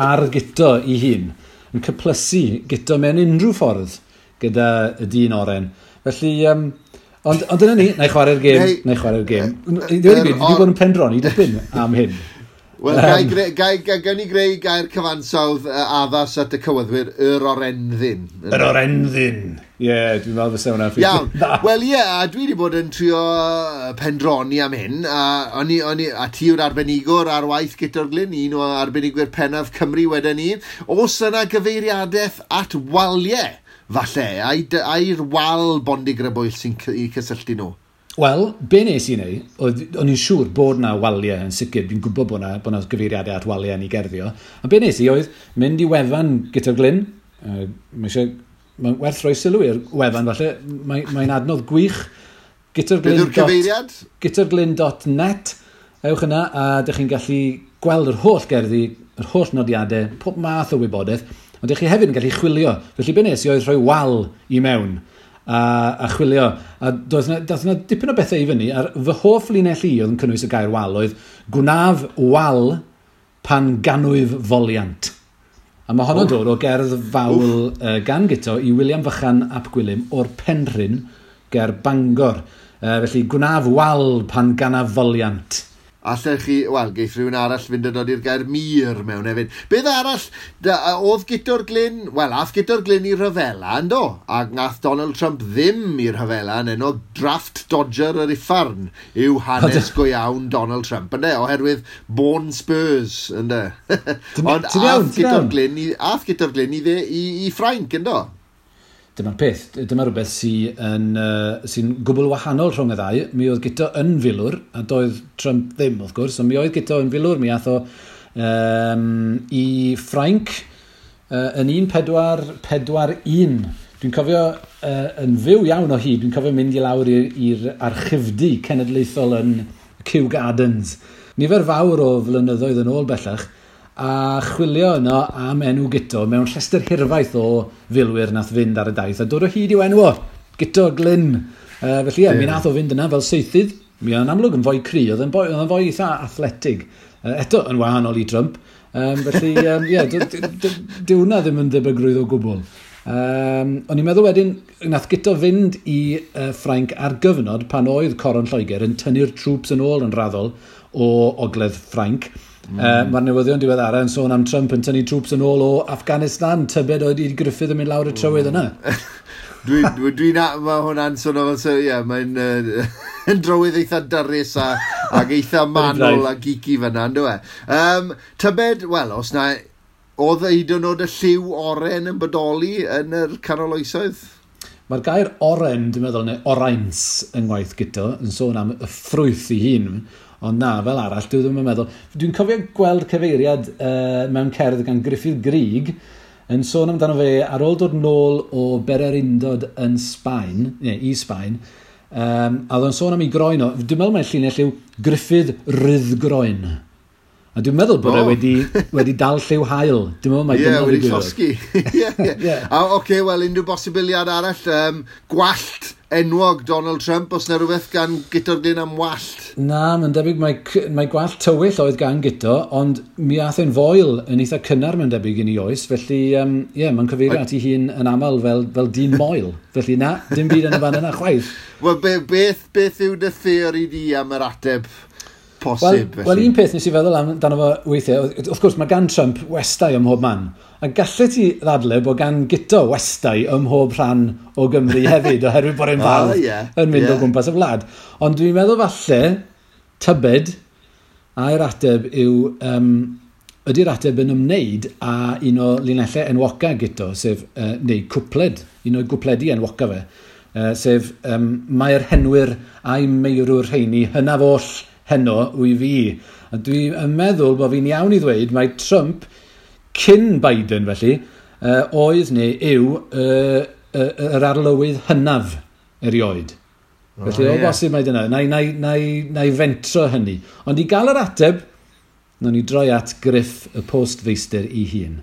ar Guto i hun, yn cyplysu Guto mewn unrhyw ffordd gyda y dyn oren. Felly, ond dyna ni, na i chwarae'r gêm, na i chwarae'r gêm. I ddweud y gwir, dwi wedi bod yn pendroni dipyn am hyn. Wel, gawn ni greu gair cyfansawdd addas at y cywyddwyr, yr orenddyn. Yr orenddyn. Ie, dwi'n meddwl fysa hwnna'n ffeithio. Iawn. Wel, ie, a dwi wedi bod yn trio pendroni am hyn, a ti yw'r arbenigwr ar waith Guto'r Glyn, un o arbenigwyr pennaf Cymru wedyn ni. Oes yna gyfeiriadaeth at waliau, falle, ai'r wal bondigrybwyll sy'n i cysylltu nhw? Wel, be nes i wneud, o'n i'n siŵr bod na waliau yn sicr, dwi'n gwybod bod na gyfeiriadau at waliau yn ei gerddio. A be nes i oedd mynd i wefan Guto'r Glyn, mae'n werth rhoi sylw i'r wefan falle, mae'n adnodd gwych. Beth yw'r cyfeiriad? Guto'rglyn.net, ewch yna a dych chi'n gallu gweld yr holl gerddi, yr holl nodiadau, pob math o wybodaeth, ond dych chi hefyd yn gallu chwilio. Felly be nes i oedd rhoi wal i mewn a chwilio. A doedd na dipyn o bethau i fyny, a'r fy hoff linell i oedd yn cynnwys y gair wal oedd gwnaf wal pan ganwyf foliant. A mae honno'n dod o gerdd fawl gan Guto i William Fychan ap Gwilym o'r Penrhyn ger Bangor. Felly gwnaf wal pan ganaf foliant. Allech chi, wel, geith rhywun arall fynd yn dod i'r gair mur mewn hefyd. Beth arall, oedd Guto'r Glyn, wel, ath Guto'r Glyn i rhyfela, yndo? A nath Donald Trump ddim i rhyfela, yn enw draft dodger yr iffarn yw hanes go iawn Donald Trump, ynde? Oherwydd Born Spurs, ynde? Ond ath Guto'r Glyn i Ffrainc, yndo? Dyma'r peth, dyma rhywbeth sy'n gwbl wahanol rhwng y ddau. Mi oedd Guto yn filwr, a doedd Trump ddim, wrth gwrs, ond mi oedd Guto yn filwr, mi ath o i Ffrainc yn 1441. Dwi'n cofio yn fyw iawn o hyd, dwi'n cofio mynd i lawr i'r archifdy cenedlaethol yn Kew Gardens. Nifer fawr o flynyddoedd yn ôl bellach, a chwilio yno am enw Guto mewn rhestr hirfaith o filwyr nath fynd ar y daith a dod o hyd i'w enw o, Guto Glyn. Felly ie, mi nath o fynd yna fel seithydd. Mi oedd yn amlwg yn fwy cry, oedd yn fwy eitha athletig. Eto yn wahanol i Trump. Felly, ie, dyw hwnna ddim yn debygrwydd o gwbl. O'n i'n meddwl wedyn, nath Guto fynd i Ffrainc ar gyfnod pan oedd Coron Lloegr yn tynnu'r troops yn ôl yn raddol o ogledd Ffrainc. Mae'r newyddion diweddara yn sôn am Trump yn tynnu troops yn ôl o Afghanistan, tybed oedd i Gruffydd yn mynd lawr y trywydd yna. Mae hwnna'n sôn o fel, ie, mae'n yn drywydd eitha dyrus ac eitha manwl a geeky fyna, ynddo e? Tybed, wel, os na, oedd hyd yn oed y lliw oren yn bodoli yn yr canol oesoedd? Mae'r gair oren, dwi'n meddwl, neu orains yng ngwaith Guto, yn sôn am y ffrwyth ei hun. Ond na, fel arall, dwi ddim yn meddwl. Dwi'n cofio gweld cyfeiriad mewn cerdd gan Gruffydd Gryg yn sôn amdano fe ar ôl dod nôl o Bererindod yn Sbaen, neu i Sbaen, a oedd o'n sôn am ei groen o. Dwi'n meddwl mai'r llinell yw Gruffydd Ryddgroen. A dwi'n meddwl bod e wedi dal lliw haul. Dwi'n meddwl mai dyna wedi llosgi. Ie. A oce, wel, unrhyw bosibiliad arall, gwallt enwog Donald Trump, os na rhywbeth gan Guto'r Glyn am wallt? Na, mae'n debyg mae gwallt tywyll oedd gan Guto, ond mi ath e'n foel yn eitha cynnar mae'n debyg yn ei oes, felly ie, mae'n cyfeirio at ei hun yn aml fel dyn moel. Felly na, dim byd yn y fan yna chwaith. Wel, beth yw dy theori di am yr ateb? posib. Wel, un peth nes i feddwl amdano fo weithiau, wrth gwrs mae gan Trump westai ym mhob man. A gallet ti ddadle bod gan Guto westai ym mhob rhan o Gymru hefyd, oherwydd bod e'n fardd yn mynd o gwmpas y wlad. Ond dwi'n meddwl falle, tybed, a'r ateb yw, ydy'r ateb yn ymwneud â un o linellau enwoca Guto, sef, neu cwpled, un o'i gwpledi enwoca fe, sef mae'r henwyr a'i meirwr rheini hynaf oll heno wy fi. A dwi'n meddwl bod fi'n iawn i ddweud mae Trump cyn Biden felly, oedd neu yw yr arlywydd hynaf erioed. Felly o bosib mae dyna. Na i fentro hynny. Ond i gael yr ateb, nawn ni droi at Griff y postfeistr ei hun.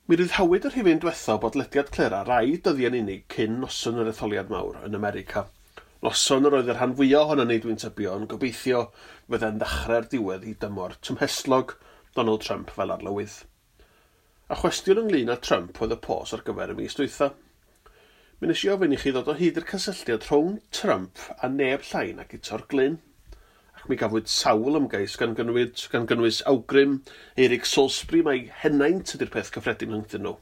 Mi ryddhawyd y rhifyn diwetha o bodlediad Clera rai dyddiau'n unig cyn noson yr etholiad mawr yn America. Noson yr oedd y rhan fwyaf ohonon ni, dwi'n tybio, yn gobeithio fydde'n ddechrau'r diwedd i dymor tymhestlog Donald Trump fel arlywydd. A chwestiwn ynglyn â Trump oedd y pos ar gyfer y mis dwytha. Mi nes i ofyn i chi ddod o hyd i'r cysylltiad rhwng Trump a neb llai na Guto'r Glyn. Ac mi gafwyd sawl ymgais gan gynnwys awgrym Eric Salisbury mai henaint ydy'r peth cyffredin rhyngddyn nhw.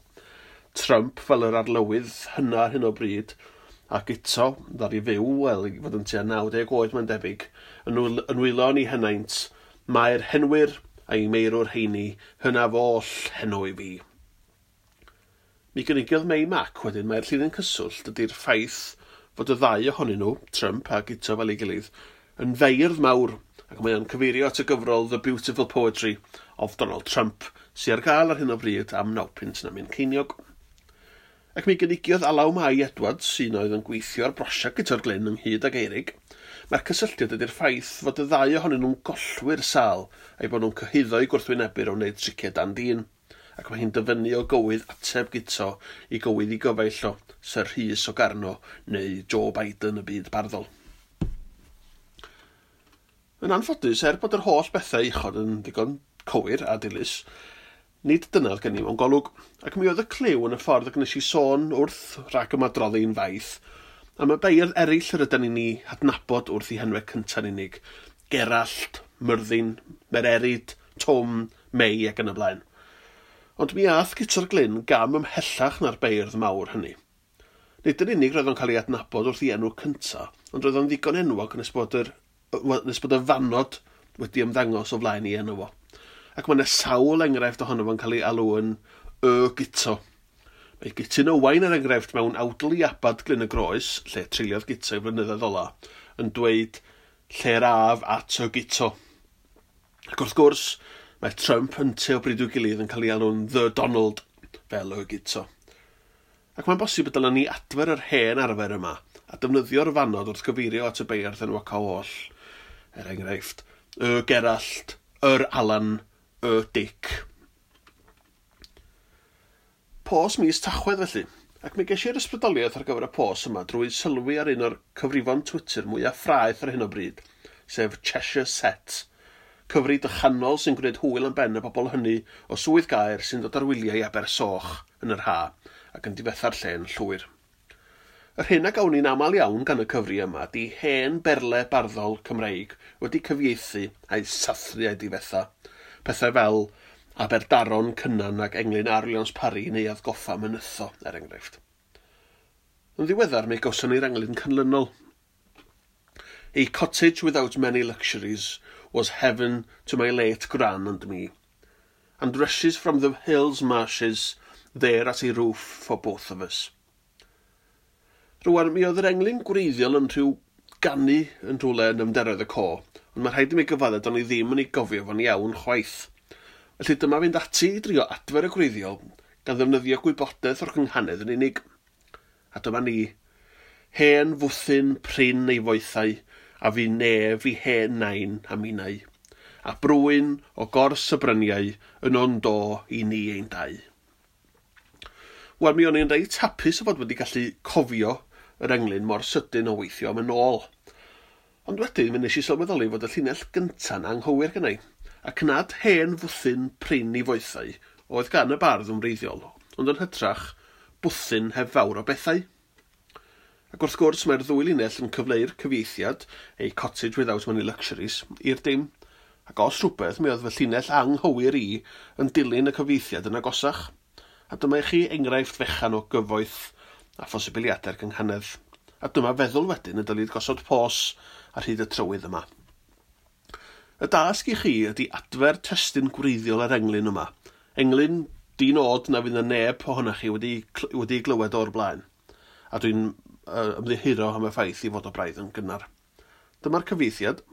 Trump fel yr arlywydd hynna ar hyn o bryd, a Guto, ddaru fyw, wel, i fod yn tua 90 oed mae'n debyg, yn wylo yn ei henaint, mae'r henwyr a'i meirwr heini hynaf oll heno i fi. Mi gynigiodd Mei Mac wedyn mai'r llinyn cyswllt ydy'r ffaith fod y ddau ohonyn nhw, Trump a Guto fel ei gilydd, yn feirdd mawr, ac mae o'n cyfeirio at y gyfrol The Beautiful Poetry of Donald Trump, sydd ar gael ar hyn o bryd am 9 punt na myn ceiniog. Ac mi gynigiodd Alaw Mai Edwards, sy'n oedd yn gweithio ar brosiect Guto'r Glyn ynghyd ag Eirig, mae'r cysylltiad ydy'r ffaith fod y ddau ohonyn nhw'n gollwyr sâl a'i bod nhw'n cyhuddo i gwrthwynebwyr o wneud triciau dan dîn, ac mae hi'n dyfynnu o gywydd ateb Guto i gywydd i gyfaill o Sir Rhys o Garno neu Joe Biden y byd barddol. Yn anffodus, er bod yr holl bethau uchod yn ddigon cywir a dilys, nid dyna oedd gen i mewn golwg, ac mi oedd y cliw yn y ffordd y gwnes i sôn wrth rhag ymadroddi'n faith am y beirdd eraill yr ydyn ni'n ei hadnabod wrth i henwau cynta'n unig, Gerallt, Myrddin, Mererid, Twm, Mei ac yn y blaen. Ond mi ath Guto'r Glyn gam ymhellach na'r beirdd mawr hynny. Nid yn unig roedd o'n cael ei adnabod wrth ei enw cynta, ond roedd o'n ddigon enwog nes bod y fanod wedi ymddangos o flaen ei enw fo. Ac mae yna sawl enghraifft ohono fo'n cael ei alw yn y Guto. Mae Gutun Owain er enghraifft mewn awdl i Abad Glyn y Groes, lle treuliodd Guto i flynyddoedd ola, yn dweud lle'r af at y Guto. Ac wrth gwrs, mae Trump ynte o bryd i'w gilydd yn cael ei alw'n The Donald, fel y Guto. Ac mae'n bosib y dylen ni adfer yr hen arfer yma a defnyddio'r fanod wrth gyfeirio at y beirdd enwoca oll. Er enghraifft, y Gerallt, yr Alan, y Dic. Pos mis Tachwedd felly, ac mi ges i'r ysbrydoliaeth ar gyfer y pos yma drwy sylwi ar un o'r cyfrifon Twitter mwyaf ffraeth ar hyn o bryd, sef Cheshire Set, cyfri dychanol sy'n gwneud hwyl am ben y bobl hynny o swydd gaer sy'n dod ar wyliau i Abersoch yn yr ha ac yn difetha'r lle'n llwyr. Yr hyn a gawn ni'n aml iawn gan y cyfri yma di hen berle barddol Cymreig wedi cyfieithu a'i sathru a'i difetha. Pethau fel Aberdaron Cynan ac Englyn R. Williams Parry neu Atgoffa Mynytho, er enghraifft. Yn ddiweddar mi gawson ni'r englyn canlynol. A cottage without many luxuries was heaven to my late gran and me, and rushes from the hills marshes there at a roof for both of us. Rwan, mi oedd yr englyn gwreiddiol yn rhyw ganu yn rhywle yn ymderoedd y co, ond mae rhaid i mi gyfadde do'n i ddim yn ei gofio fo'n iawn chwaith. Felly dyma fynd ati i drio adfer y gwreiddiol gan ddefnyddio gwybodaeth o'r cynghanedd yn unig. A dyma ni, hen fwthyn prin ei foethau, a fi nef i hen nain a minnau, a brwyn o gors y bryniau yn o'n do i ni ein dau. Wel, mi o'n i'n reit hapus o fod wedi gallu cofio yr englyn mor sydyn o weithio am yn ôl. Ond wedyn, mi nes i sylweddoli fod y llinell gynta'n anghywir gennai, ac nad hen fwthyn prin i foethau oedd gan y bardd yn wreiddiol, ond yn hytrach bwthyn heb fawr o bethau. Ac wrth gwrs mae'r ddwy linell yn cyfleu'r cyfieithiad, a cottage without many luxuries, i'r dim. Ac os rhywbeth, mi oedd fy llinell anghywir i yn dilyn y cyfieithiad yn agosach. A dyma i chi enghraifft fechan o gyfoeth a phosibiliadau'r gynghanedd. A dyma feddwl wedyn y dylid gosod pos ar hyd y trywydd yma. Y dasg i chi ydy adfer testun gwreiddiol yr englyn yma. Englyn di-nod na fydd y neb ohonoch chi wedi glywed o'r blaen. A dwi'n ymddiheuro am y ffaith i fod o braidd yn gynnar. Dyma'r cyfieithiad.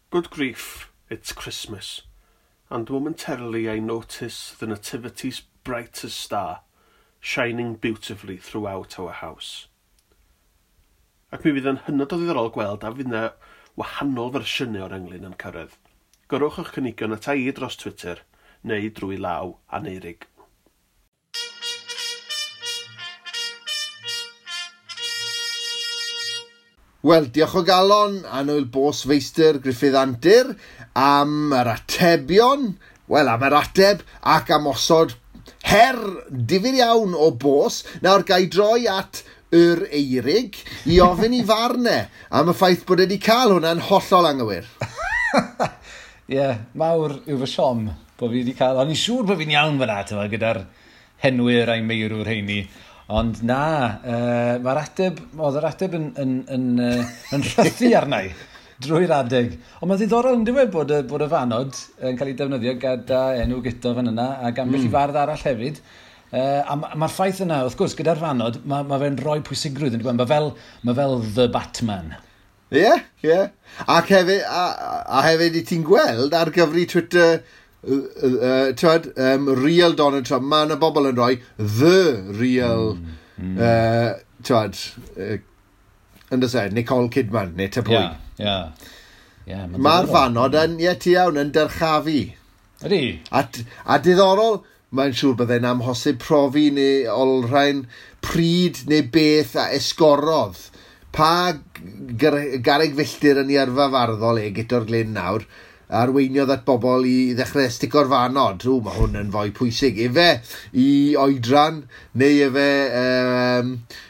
Good grief, it's Christmas. And momentarily I notice the nativity's brightest star, shining beautifully throughout our house. Ac mi fydd yn hynod o ddiddorol gweld a fydd yna wahanol fersiynau o'r englyn yn cyrraedd. Gyrrwch eich cynigion ata i dros Twitter neu drwy law Aneurig. Wel, diolch o galon, annwyl bos feistr Gruffydd Antur, am yr atebion, wel, am yr ateb ac am osod her difyr iawn o bos. Nawr, ga i droi at yr Eirig i ofyn i farn e am y ffaith bod e wedi cael hwnna'n hollol anghywir. Ie, yeah, mawr yw fy siom bod fi wedi cael... O'n i'n siŵr bod fi'n iawn fyna, tyma, gyda'r henwyr a'i meirwr heini. Ond na, mae'r ateb, oedd yr ateb yn rhythu arna i drwy'r adeg. Ond mae'n ddiddorol yn dweud bod y fanod yn cael ei defnyddio gyda enw Guto fan yna ac ambell i fardd arall hefyd. A mae'r ffaith yna, wrth gwrs, gyda'r fanod, mae fe'n rhoi pwysigrwydd yn dweud. Mae fel The Batman. Ie, ie. Ac hefyd, a hefyd i ti'n gweld ar gyfri Twitter, twyd, real Donald Trump, mae yna bobl yn rhoi the real, twyd, yn dys e, Nicole Kidman, neu ta pwy. Ie, ie. Mae'r fanod yn, ie, ti iawn, yn dyrchafu. Ydy. A diddorol, mae'n siŵr byddai'n amhosib profi neu olrhain pryd neu beth a esgorodd. Pa garreg filltir yn ei yrfa farddol e, Guto'r Glyn nawr, arweiniodd at bobl i ddechrau stico'r fanod. Ww, mae hwn yn fwy pwysig. Efe i oedran, neu efe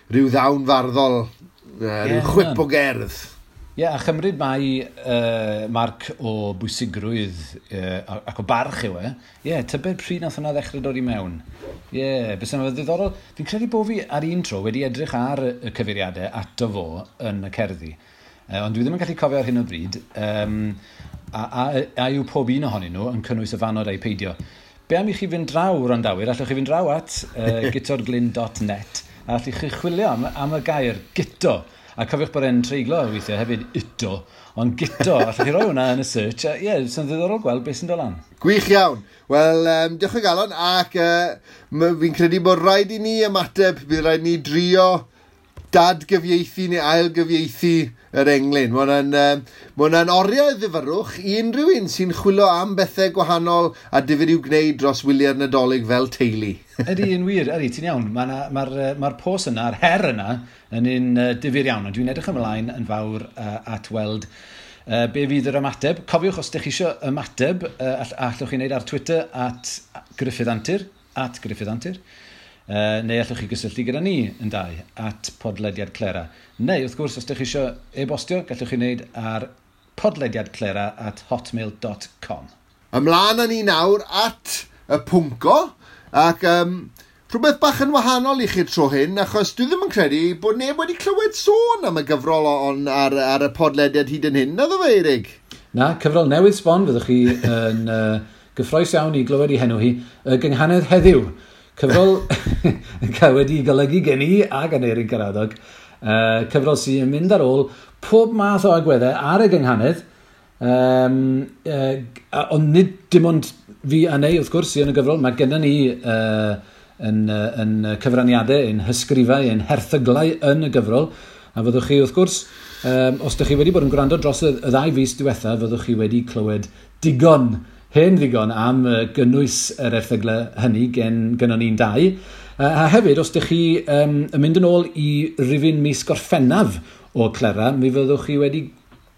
rhyw ddawn farddol, rhyw chwip o gerdd. Ie, a chymryd mai marc o bwysigrwydd ac o barch yw e. Ie, tybed pryd nath hwnna ddechrau dod i mewn. Ie, bys yna ddiddorol. Fi'n credu bod fi ar un tro wedi edrych ar y cyfeiriadau ato fo yn y cerddi. Ond dwi ddim yn gallu cofio ar hyn o bryd. A yw pob un ohonyn nhw yn cynnwys y fanod a'i peidio. Be am i chi fynd draw, wrandawyr? Allwch chi fynd draw at gutorglyn.net a allwch chi chwilio am y gair Guto. A cofiwch bod e'n treiglo weithiau hefyd Uto, ond Guto, allwch chi roi hwnna yn y search. Ie, yeah, sy'n ddiddorol gweld beth sy'n dod lan. Gwych iawn. Wel, diolch o galon, ac fi'n credu bod rhaid i ni ymateb, bydd rhaid i ni drio dadgyfieithu neu ailgyfieithu yr englyn. Mae hwnna'n oriau ddifyrrwch i unrhyw un sy'n chwilio am bethau gwahanol a difyr i'w gwneud dros wyliau'r Nadolig fel teulu. Ydy, yn wir, ydy, ti'n iawn. Mae'r pos yna, yr her yna, yn un difyr iawn. Ond dwi'n edrych ymlaen yn fawr at weld be fydd yr ymateb. Cofiwch, os ydych chi eisiau ymateb, allwch chi wneud ar Twitter at Gruffydd Antur, at Gruffydd Antur. Neu allwch chi gysylltu gyda ni yn dau at podlediad Clera. Neu, wrth gwrs, os ydych chi eisiau e-bostio, gallwch chi wneud ar podlediadclera@hotmail.com. Ymlaen â ni nawr at y pwnco, ac rhywbeth bach yn wahanol i chi'r tro hyn, achos dwi ddim yn credu bod neb wedi clywed sôn am y gyfrol on ar y podlediad hyd yn hyn, naddo fe, Eirig? Na, cyfrol newydd sbon, fyddwch chi yn gyffrous iawn i glywed i henw hi, y gynghanedd heddiw. Cyfrol cael wedi golygu gen i ac Aneurin Karadog. Cyfrol sy'n mynd ar ôl pob math o agweddau ar y gynghanedd. Ond nid dim ond fi a Neu, wrth gwrs, sy'n yn y gyfrol. Mae gennym ni yn cyfraniadau, yn hysgrifau, yn herthyglau yn y gyfrol. A fyddwch chi, wrth gwrs, os ydych chi wedi bod yn gwrando dros y ddau fis diwetha, fyddwch chi wedi clywed digon, hen ddigon am gynnwys yr erthyglau hynny gynnon ni'n dau. A hefyd, os ydych chi yn mynd yn ôl i rifyn mis Gorffennaf o Clera, mi fyddwch chi wedi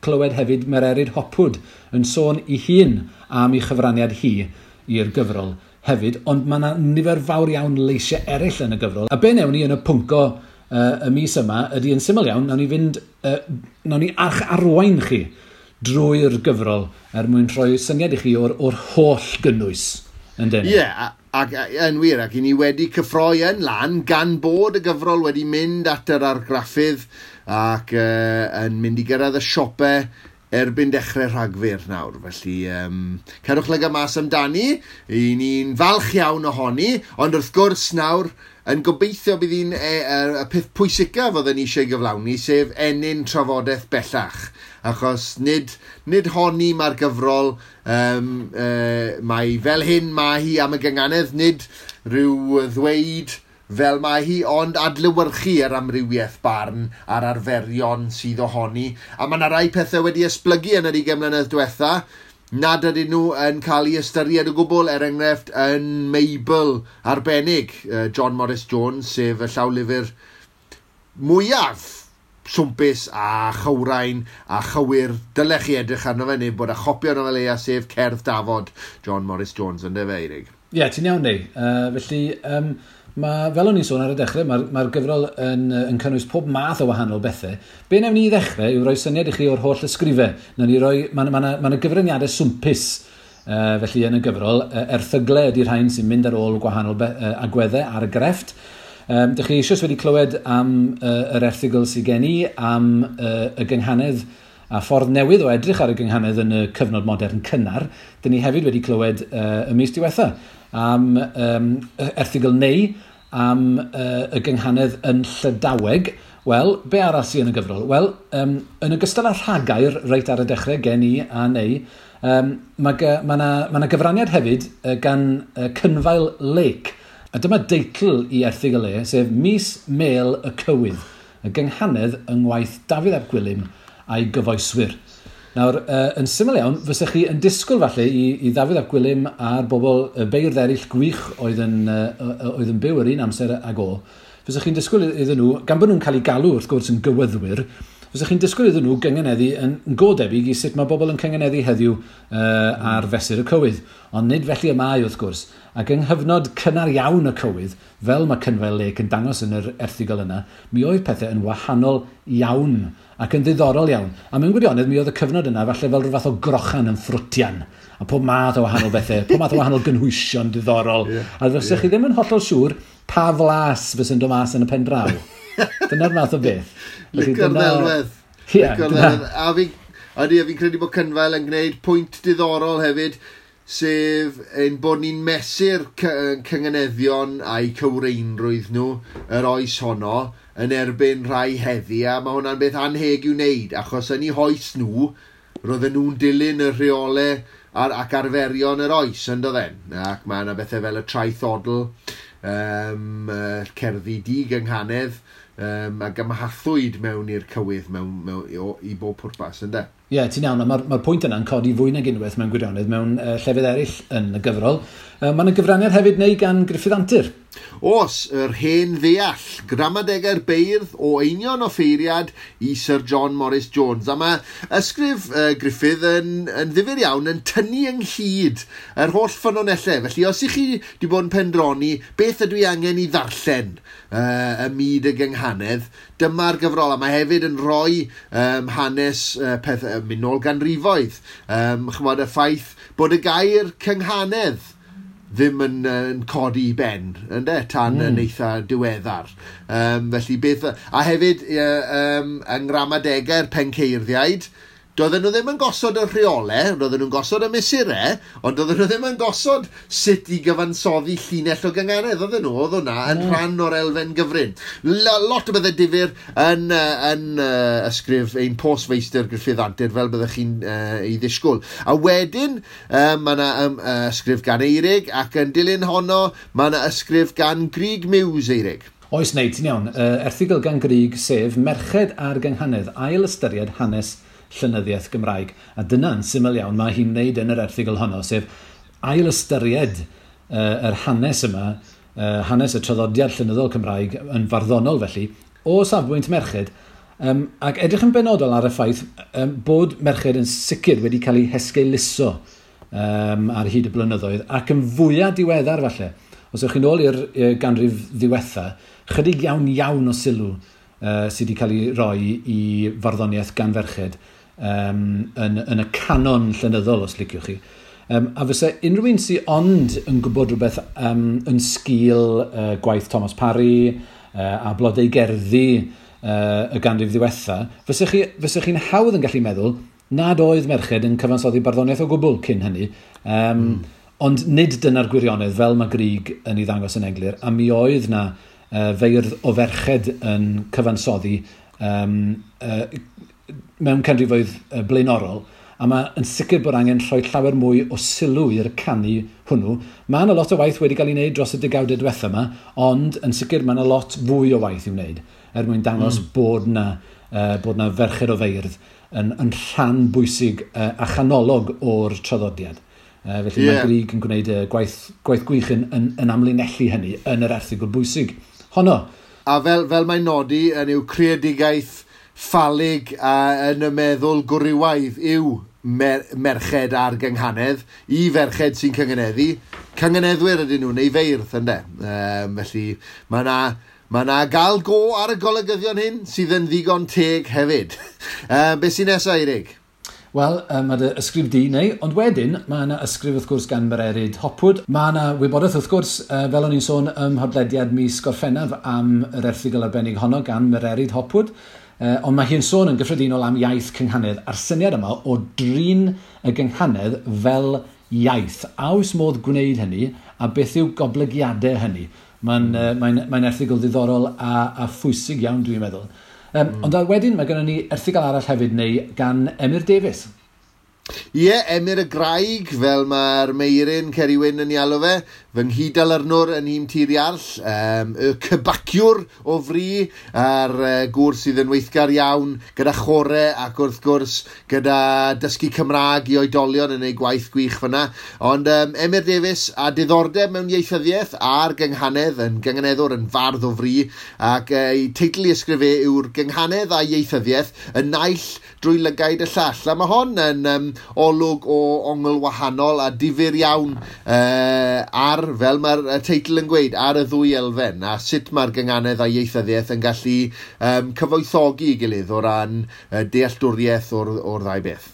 clywed hefyd Mererid Hopwood yn sôn i hun am ei chyfraniad hi i'r gyfrol hefyd, ond mae yna nifer fawr iawn leisiau eraill yn y gyfrol. A be newn ni yn y pwnco y mis yma ydy yn syml iawn, nawn ni fynd, nawn ni arwain chi drwy'r gyfrol er mwyn rhoi syniad i chi o'r holl gynnwys. Ie, yeah, ac yn wir, ac i ni wedi cyffroi yn lan gan bod y gyfrol wedi mynd at yr argraffydd ac yn mynd i gyrraedd y siopau erbyn dechrau Rhagfyr nawr. Felly, cerwch lygad mas amdani, i ni'n falch iawn ohoni, ond wrth gwrs nawr, yn gobeithio bydd hi'n y peth pwysicaf oedden ni eisiau gyflawni, sef ennyn trafodaeth bellach. Achos nid honni mae'r gyfrol, mae fel hyn mae hi am y gynganedd, nid rhyw ddweud fel mae hi, ond adlewyrchu yr amrywiaeth barn a'r arferion sydd ohoni. A mae yna rai pethau wedi esblygu yn yr 20 mlynedd diwetha, nad ydyn nhw yn cael ei ystyried o gwbl, er enghraifft yn Meibl arbennig, John Morris Jones, sef y llawlyfr mwyaf swmpus a chywrain a chywir. Dylech chi edrych arno fe, neu bod a chopi arno fe leia, sef Cerdd Dafod John Morris Jones, ynde fe, Eirig? Ie, yeah, ti'n iawn, neu. Felly, fel o'n i'n sôn ar y dechrau, mae'r gyfrol yn cynnwys pob math o wahanol bethau. Be wnawn ni i ddechrau yw rhoi syniad i chi o'r holl ysgrifau. Mae yna gyfraniadau swmpus felly yn y gyfrol. Erthyglau ydy'r rhain sy'n mynd ar ôl gwahanol agweddau ar y grefft. Dych chi eisoes wedi clywed am yr erthygl sydd gen i, am y gynghanedd a ffordd newydd o edrych ar y gynghanedd yn y cyfnod modern cynnar. Dyn ni hefyd wedi clywed y mis diwetha am erthygl neu am y gynghanedd yn Llydaweg. Wel, be arall sydd yn y gyfrol? Wel, yn ogystal â rhagair reit ar y dechrau gen i a neu, mae yna gyfraniad hefyd gan Cynfael Lake. A dyma deitl i erthygl e, sef Mis Mêl y Cywydd, y gynghanedd yng ngwaith Dafydd ap Gwilym a'i gyfoeswyr. Nawr, yn syml iawn, fysech chi yn disgwyl falle i Ddafydd ap Gwilym a'r bobl y beirdd eraill gwych oedd yn byw yr un amser ag o, fysech chi'n disgwyl iddyn nhw, gan bod nhw'n cael eu galw wrth gwrs yn gywyddwyr, fysech chi'n disgwyl iddyn nhw gyngeneddu yn go debyg i sut mae bobl yn cyngeneddu heddiw ar fesur y cywydd. Ond nid felly y mae wrth gwrs. Ac yng nghyfnod cynnar iawn y cywydd, fel mae Cynfael Lake yn dangos yn yr erthygl yna, mi oedd pethau yn wahanol iawn ac yn ddiddorol iawn. A mewn gwirionedd, mi oedd y cyfnod yna falle fel rhyw fath o grochan yn ffrwtian. A pob math o wahanol bethau, pob math o wahanol gynhwysion diddorol. Yeah, a fysech chi ddim yn hollol siŵr pa flas fysa'n dod mas yn y pen draw. Dyna'r math o beth. Licio'r ddelwedd. Licio'r ddelwedd. A fi'n credu bod Cynfael yn gwneud pwynt diddorol hefyd, sef ein bod ni'n mesur cynganeddion a'i cywreinrwydd nhw yr oes honno yn erbyn rhai heddi, a mae hwnna'n beth anheg i'w wneud, achos yn eu hoes nhw, roedden nhw'n dilyn y rheolau ac arferion yr oes, yn doedden. Ac mae yna bethau fel y traethodl, cerddi digynghanedd, ac ymhathwyd mewn i'r cywydd i bob pwrpas, ynde? Ie, yeah, ti'n iawn, a mae'r pwynt yna'n codi fwy nag unwaith mewn gwirionedd mewn llefydd eraill yn y gyfrol. Mae yna gyfraniad hefyd neu gan Gruffydd Antur. Oes, yr hen ddeall, gramadegau'r beirdd o Einion Offeiriad i Sir John Morris Jones. A mae ysgrif Gruffydd yn ddifyr iawn yn tynnu ynghyd yr holl ffynonellau. Felly, os ych chi wedi bod yn pendroni, beth ydw i angen i ddarllen y myd y gynghanedd, dyma'r gyfrol. A mae hefyd yn rhoi hanes peth mynd nôl ganrifoedd. Ch'mod, y ffaith bod y gair cynghanedd ddim yn codi i ben, ynde, tan yn eitha diweddar. Felly beth... A hefyd, yng ngramadegau'r penceirddïaid, doedden nhw ddim yn gosod y rheolau, doedden nhw'n gosod y mesurau, ond doedden nhw ddim yn gosod sut i gyfansoddi llinell o gynganedd, oedden nhw, oedd hwnna yn rhan o'r elfen gyfrin. Lot o bethau difyr yn ysgrif ein postfeistr Gruffydd Antur, fel byddech chi'n ei ddisgwyl. A wedyn, mae yna ysgrif gan Eirig, ac yn dilyn honno, mae yna ysgrif gan Grug Muse, Eirig. Oes, neu, ti'n iawn. Erthygl gan Grug, sef Merched a'r Gynghanedd, ail ystyried hanes llenyddiaeth Gymraeg. A dyna'n syml iawn mae hi'n wneud yn yr erthygl honno, sef ail ystyried yr hanes yma, hanes y traddodiad llenyddol Cymraeg yn farddonol felly, o safbwynt merched, ac edrych yn benodol ar y ffaith bod merched yn sicr wedi cael eu hesgeuluso ar hyd y blynyddoedd, ac yn fwyaf diweddar falle. Os ewch chi'n ôl i'r ganrif ddiwetha, Chydig iawn iawn o sylw sydd wedi cael ei roi i farddoniaeth gan ferched yn y canon llenyddol, os liciwch chi. A fysa unrhyw un sydd ond yn gwybod rhywbeth yn sgil gwaith Thomas Parry a blodau gerddi y ganrif ddiwetha, fysa chi'n hawdd yn gallu meddwl nad oedd merched yn cyfansoddi barddoniaeth o gwbl cyn hynny. Ond nid dyna'r gwirionedd fel mae Grug yn ei ddangos yn eglur, a mi oedd na feirdd o ferched yn cyfansoddi mewn canrifoedd blaenorol, a mae yn sicr bod angen rhoi llawer mwy o sylw i'r canu hwnnw. Mae yna lot o waith wedi cael ei wneud dros y degawdau diwetha yma, ond yn sicr mae yna lot fwy o waith i'w wneud er mwyn dangos bod na ferched o feirdd yn rhan bwysig a chanolog o'r traddodiad. Felly mae Grug yn gwneud gwaith gwych yn amlinellu hynny yn yr erthygl bwysig honno. A fel mae'n nodi yn yw creadigaeth ffalig a yn y meddwl gwrywaidd yw merched a'r gynghanedd, i ferched sy'n cynganeddu. Cynganeddwyr ydyn nhw, neu feirdd, ynde. Felly mae 'na gael go ar y golygyddion hyn sydd yn ddigon teg hefyd. Be sy'n nesaf, Eirig? Wel, mae dy ysgrif di neu, ond wedyn mae yna ysgrif wrth gwrs gan Mererid Hopwood. Mae yna wybodaeth wrth gwrs, fel o'n i'n sôn ym mhodlediad mis Gorffennaf am yr erthygl arbennig honno gan Mererid Hopwood. Ond mae hi'n sôn yn gyffredinol am iaith cynghanedd a'r syniad yma o drin y gynghanedd fel iaith. A oes modd gwneud hynny, a beth yw goblygiadau hynny? Mae'n erthygl ddiddorol a phwysig iawn, dwi'n meddwl. Ond wedyn mae gennym ni erthygl arall hefyd neu gan Emyr Davies. Ie, Emyr y Graig, fel mae'r Meirin Ceri Wyn yn ei alw fe, fy nghyd-dalyrnwr yn nhîm Tir Iarll, y cybaciwr o fri, a'r gŵr sydd yn weithgar iawn gyda chore ac wrth gwrs gyda dysgu Cymraeg i oedolion yn ei gwaith gwych fyna. Ond Emyr Davies a diddordeb mewn ieithyddiaeth a'r gynghanedd, yn gynganeddwr, yn fardd o fri, ac ei teitl i ysgrifu yw'r gynghanedd a ieithyddiaeth, y naill drwy lygaid y llall. A mae hon yn olwg o ongl wahanol a difyr iawn ar, fel mae'r teitl yn gweud, ar y ddwy elfen a sut mae'r gynghanedd a ieithyddiaeth yn gallu cyfoethogi ei gilydd o ran dealltwriaeth o'r ddau beth.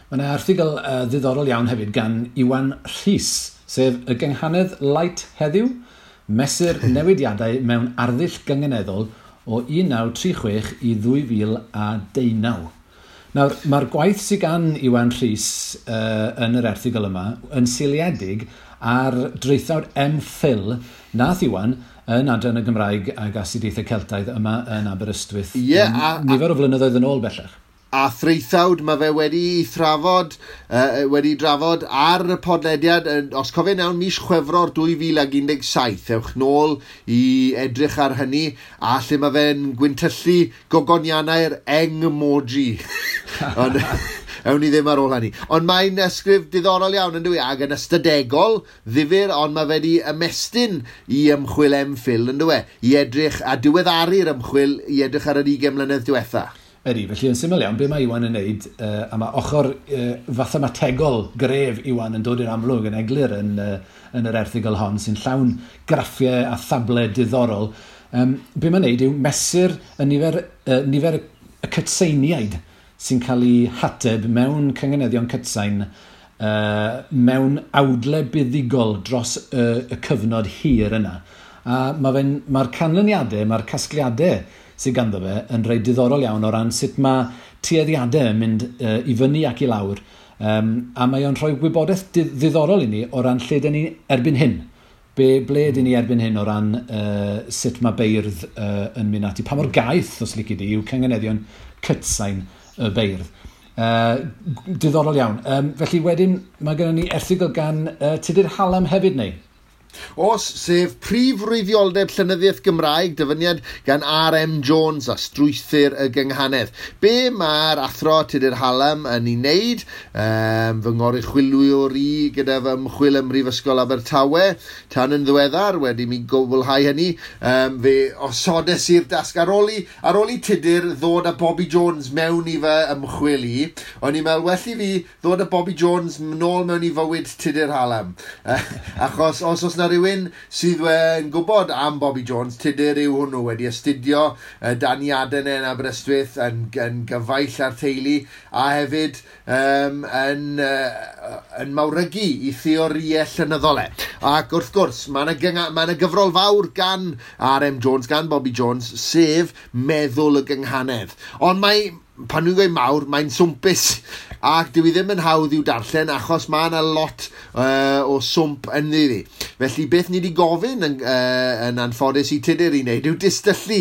Mae yna erthygl ddiddorol iawn hefyd gan Iwan Rhys, sef y gynghanedd light heddiw, mesur newidiadau mewn arddull gynganeddol o 1936 i 2019. Nawr, mae'r gwaith sydd gan Iwan Rhys yn yr erthygl yma yn seiliedig ar draethawd MPhil nath Iwan yn Adran y Gymraeg ag Astudiaethau Celtaidd yma yn Aberystwyth. Nifer o flynyddoedd yn ôl bellach. A thraethawd mae fe wedi drafod ar y podlediad, os cofion iawn, mis Chwefror 2017. Ewch nôl i edrych ar hynny, a lle mae fe'n gwyntyllu gogoniannau'r eng-emoji. Ond ewn ni ddim ar ôl hynny. Ond mae'n ysgrif diddorol iawn, yn dyw e, ac yn ystadegol, ddifyr, ond mae fe wedi ymestyn i ymchwil MPhil, yn dyw e, i edrych a diweddaru'r ymchwil i edrych ar yr 20 mlynedd diwetha. Ydy, felly yn syml iawn, be mae Iwan yn neud, a mae ochr fathemategol gref Iwan yn dod i'r amlwg yn eglur yn yr erthygl hon, sy'n llawn graffiau a thablau diddorol. Be mae'n neud yw mesur y nifer y cytseiniaid sy'n cael ei hateb mewn cynganeddion cytsain mewn awdle buddugol dros y cyfnod hir yna. A mae'r canlyniadau, mae'r casgliadau sydd ganddo fe yn rhai diddorol iawn o ran sut mae tueddiadau yn mynd i fyny ac i lawr. A mae o'n rhoi gwybodaeth ddiddorol i ni o ran lle dyn ni erbyn hyn. Ble dyn ni erbyn hyn o ran sut mae beirdd yn mynd ati. Pa mor gaeth, os lici di, yw cynganeddion cytsain y beirdd. Diddorol iawn. Felly wedyn mae gennym ni erthygl gan Tudur Hallam hefyd neu? Os, sef prif wreiddioldeb llenyddiaeth Gymraeg, dyfyniad gan R.M. Jones a strwythur y gynghanedd. Be mae'r athro Tudur Hallam yn ei wneud, fy ngoruchwyliwr i gyda fy ymchwil ym Mhrifysgol Abertawe, tan yn ddiweddar, wedi mi gwblhau hynny, fe osodes i'r dasg ar ôl i Tudur ddod â Bobby Jones mewn i fy ymchwil i, o'n i'n meddwl, well i fi ddod â Bobby Jones nôl mewn i fywyd Tudur Hallam. Achos os oes na na rhywun sydd yn gwybod am Bobby Jones, Tudur yw hwnnw, wedi astudio dan Iaden yn Aberystwyth, yn gyfaill ar teulu, a hefyd yn mawrygu i theoriau llenyddol e. Ac wrth gwrs, mae yna gyfrol fawr gan R.M. Jones, gan Bobby Jones, sef Meddwl y Gynghanedd. Ond mae, pan nhw'n gweud mawr, mae'n swmpus, ac dyw i ddim yn hawdd i'w darllen achos mae yna lot o swmp ynddi ddi. Felly beth ni wedi gofyn yn anffodus i Tudur i wneud yw distyllu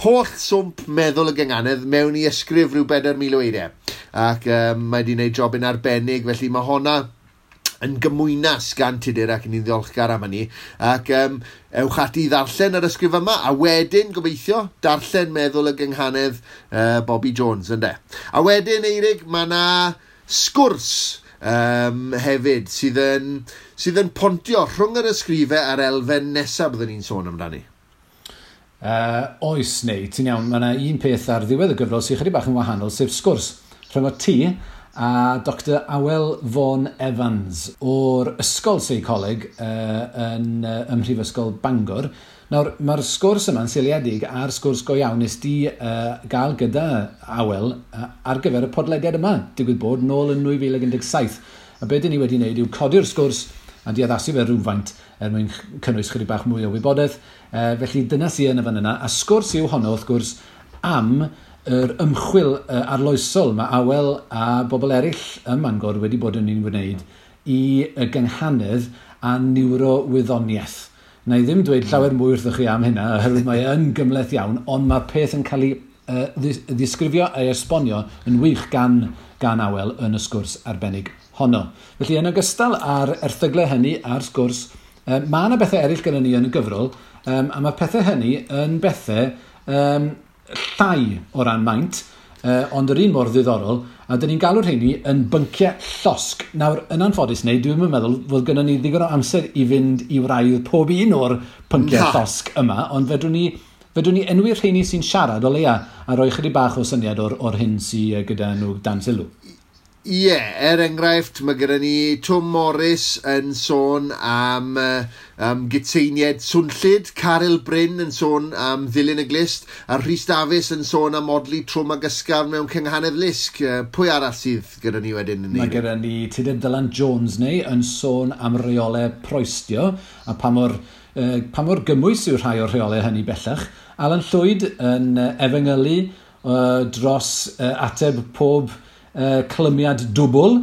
holl swmp Meddwl y Gynghanedd mewn i ysgrif rhyw 4,000 o eiriau. Ac mae wedi wneud jobyn arbennig, felly mae honna yn gymwynas gan Tudur ac ni'n ddiolchgar am hynny. Ac ewch ati i ddarllen yr ysgrif yma, a wedyn, gobeithio, darllen Meddwl y Gynghanedd Bobby Jones, ynde. A wedyn, Eirig, mae yna sgwrs hefyd sydd yn pontio rhwng yr ysgrifau a'r elfen nesaf byddwn ni'n sôn amdani. Oes, neu, ti'n iawn, mae yna un peth ar ddiwedd y gyfrol sy'n chydig bach yn wahanol, sef sgwrs rhwng o ti a Dr Awel Vaughan Evans o'r Ysgol Seicoleg yn Mhrifysgol Bangor. Nawr, mae'r sgwrs yma'n seiliedig ar sgwrs go iawn nes di gael gyda Awel ar gyfer y podlediad yma, digwydd bod nôl yn 2017. A be dyn ni wedi wneud yw codi'r sgwrs a di addasu fe rhywfaint er mwyn cynnwys chydig bach mwy o wybodaeth. Felly dyna sydd yn y fan yna. A sgwrs yw honno, wrth gwrs, am yr ymchwil arloesol mae Awel a bobl eraill ym Mangor wedi bod yn ei wneud i y gynghanedd a niwrowyddoniaeth. Na i ddim dweud llawer mwy wrthych chi am hynna, oherwydd mae yn gymhleth iawn, ond mae'r peth yn cael ei ddisgrifio a'i esbonio yn wych gan Awel yn y sgwrs arbennig honno. Felly yn ogystal â'r erthyglau hynny a'r sgwrs, mae yna bethau eraill gyda ni yn y gyfrol, a mae pethau hynny yn bethau llai o ran maint, ond yr un mor ddiddorol, a dyn ni'n galw'r rheini yn bynciau llosg. Nawr, yn anffodus neu, dwi'n meddwl fod gynnon ni ddigon o amser i fynd i wraidd pob un o'r pynciau llosg yma, ond fedrwn ni enwi'r rheini sy'n siarad o leia a rhoi chydig bach o syniad o'r hyn sydd gyda nhw dan sylw. Ie, er enghraifft, mae gyda ni Twm Morris yn sôn am gytseinied swnllyd, Caryl Bryn yn sôn am ddilyn y glist, a Rhys Dafis yn sôn am odli trwm ag ysgafn mewn cynghanedd lusg. Pwy arall sydd gyda ni wedyn? Mae gyda ni Tudur Dylan Jones neu yn sôn am reolau proestio, a pa mor gymwys yw rhai o'r rheolau hynny bellach. Alan Llwyd yn efengylu dros ateb pob clymiad dwbl.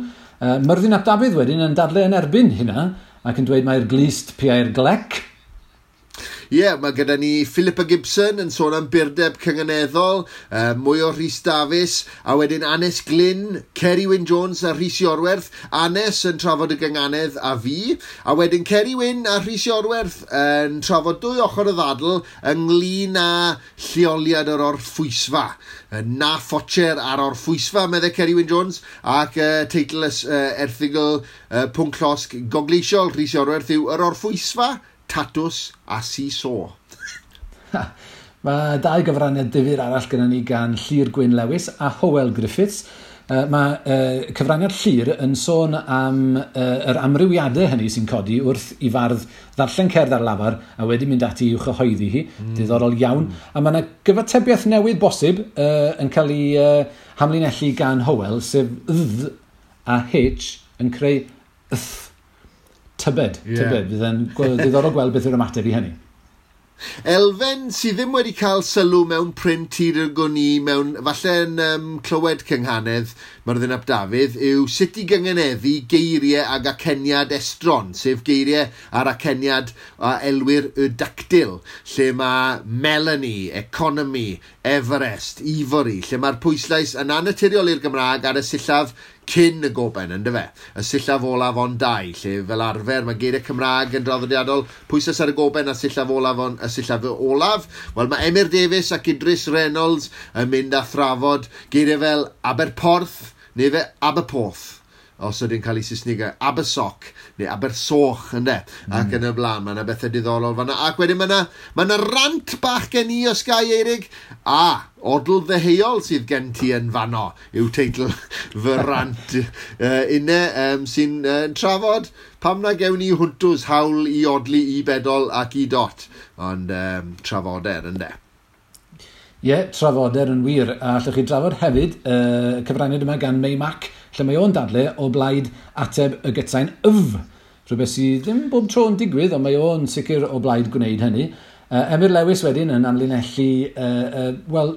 Myrddin ap Dafydd wedyn yn dadle yn erbyn hynna ac yn dweud mai'r glust piau'r glec. Ie, mae gyda ni Philippa Gibson yn sôn am burdeb cynganeddol, mwy o Rhys Dafis, a wedyn Anes Glyn, Ceri Wyn Jones a Rhys Iorwerth. Anes yn trafod y gynganedd a fi, a wedyn Ceri Wyn a Rhys Iorwerth yn trafod dwy ochr y ddadl ynglyn â lleoliad yr orffwysfa. Na ffocher ar orffwysfa, meddai Ceri Wyn Jones, ac teitl erthygl pwnc llosg gogleisiol Rhys Iorwerth yw Yr Orffwysfa, Tatws a Si-so. Mae dau gyfraniad difyr arall gyda ni gan Llyr Gwyn Lewis a Hywel Griffiths. Mae cyfraniad Llyr yn sôn am yr amrywiadau hynny sy'n codi wrth i fardd ddarllen cerdd ar lafar a wedi mynd ati i'w chyhoeddi hi. Diddorol iawn. A mae yna gyfatebiaeth newydd bosib yn cael ei hamlinellu gan Hywel, sef dd a h yn creu th. Tybed, tybed. Fydd yn diddorol gweld beth yw'r ymateb i hynny. Elfen sydd ddim wedi cael sylw mewn print hyd y gwn i, mewn, falle yn clywed cynghanedd Myrddin ap Dafydd, yw sut i gynganeddu geiriau ag aceniad estron, sef geiriau a'r aceniad a elwir y dactyl, lle mae Melanie, Economy, Everest, Ivory, lle mae'r pwyslais yn annaturiol i'r Gymraeg ar y sillaf cyn y goben, yndyfe? Y sillaf olaf ond dau, lle fel arfer mae geiriau Cymraeg yn draddodiadol pwyslais ar y goben a sillaf olaf on, y sillaf olaf. Wel, mae Emyr Davies ac Idris Reynolds yn mynd a thrafod geiriau fel Aberporth neu fe Aberporth. os ydy'n cael ei Saesnigau, Abersoch, neu Abersoch, ynde, ac yn y blaen, mae yna bethau diddorol fanna. Ac wedyn mae yna rant bach gen i o Sky Eirig, a odl ddeheuol sydd gen ti yn fanno, yw teitl fy rant unne, sy'n trafod pam na gewn ni hwntws hawl i odli i bedol ac i dot, ond trafoder, ynde. Ie, yeah, trafoder yn wir. A allwch chi drafod hefyd cyfraniad yma gan May Mac, lle mae o'n dadle o blaid ateb y gytsain yf. Rhywbeth sydd ddim bob tro yn digwydd, ond mae o'n sicr o blaid gwneud hynny. Emyr Lewis wedyn yn amlinellu, wel,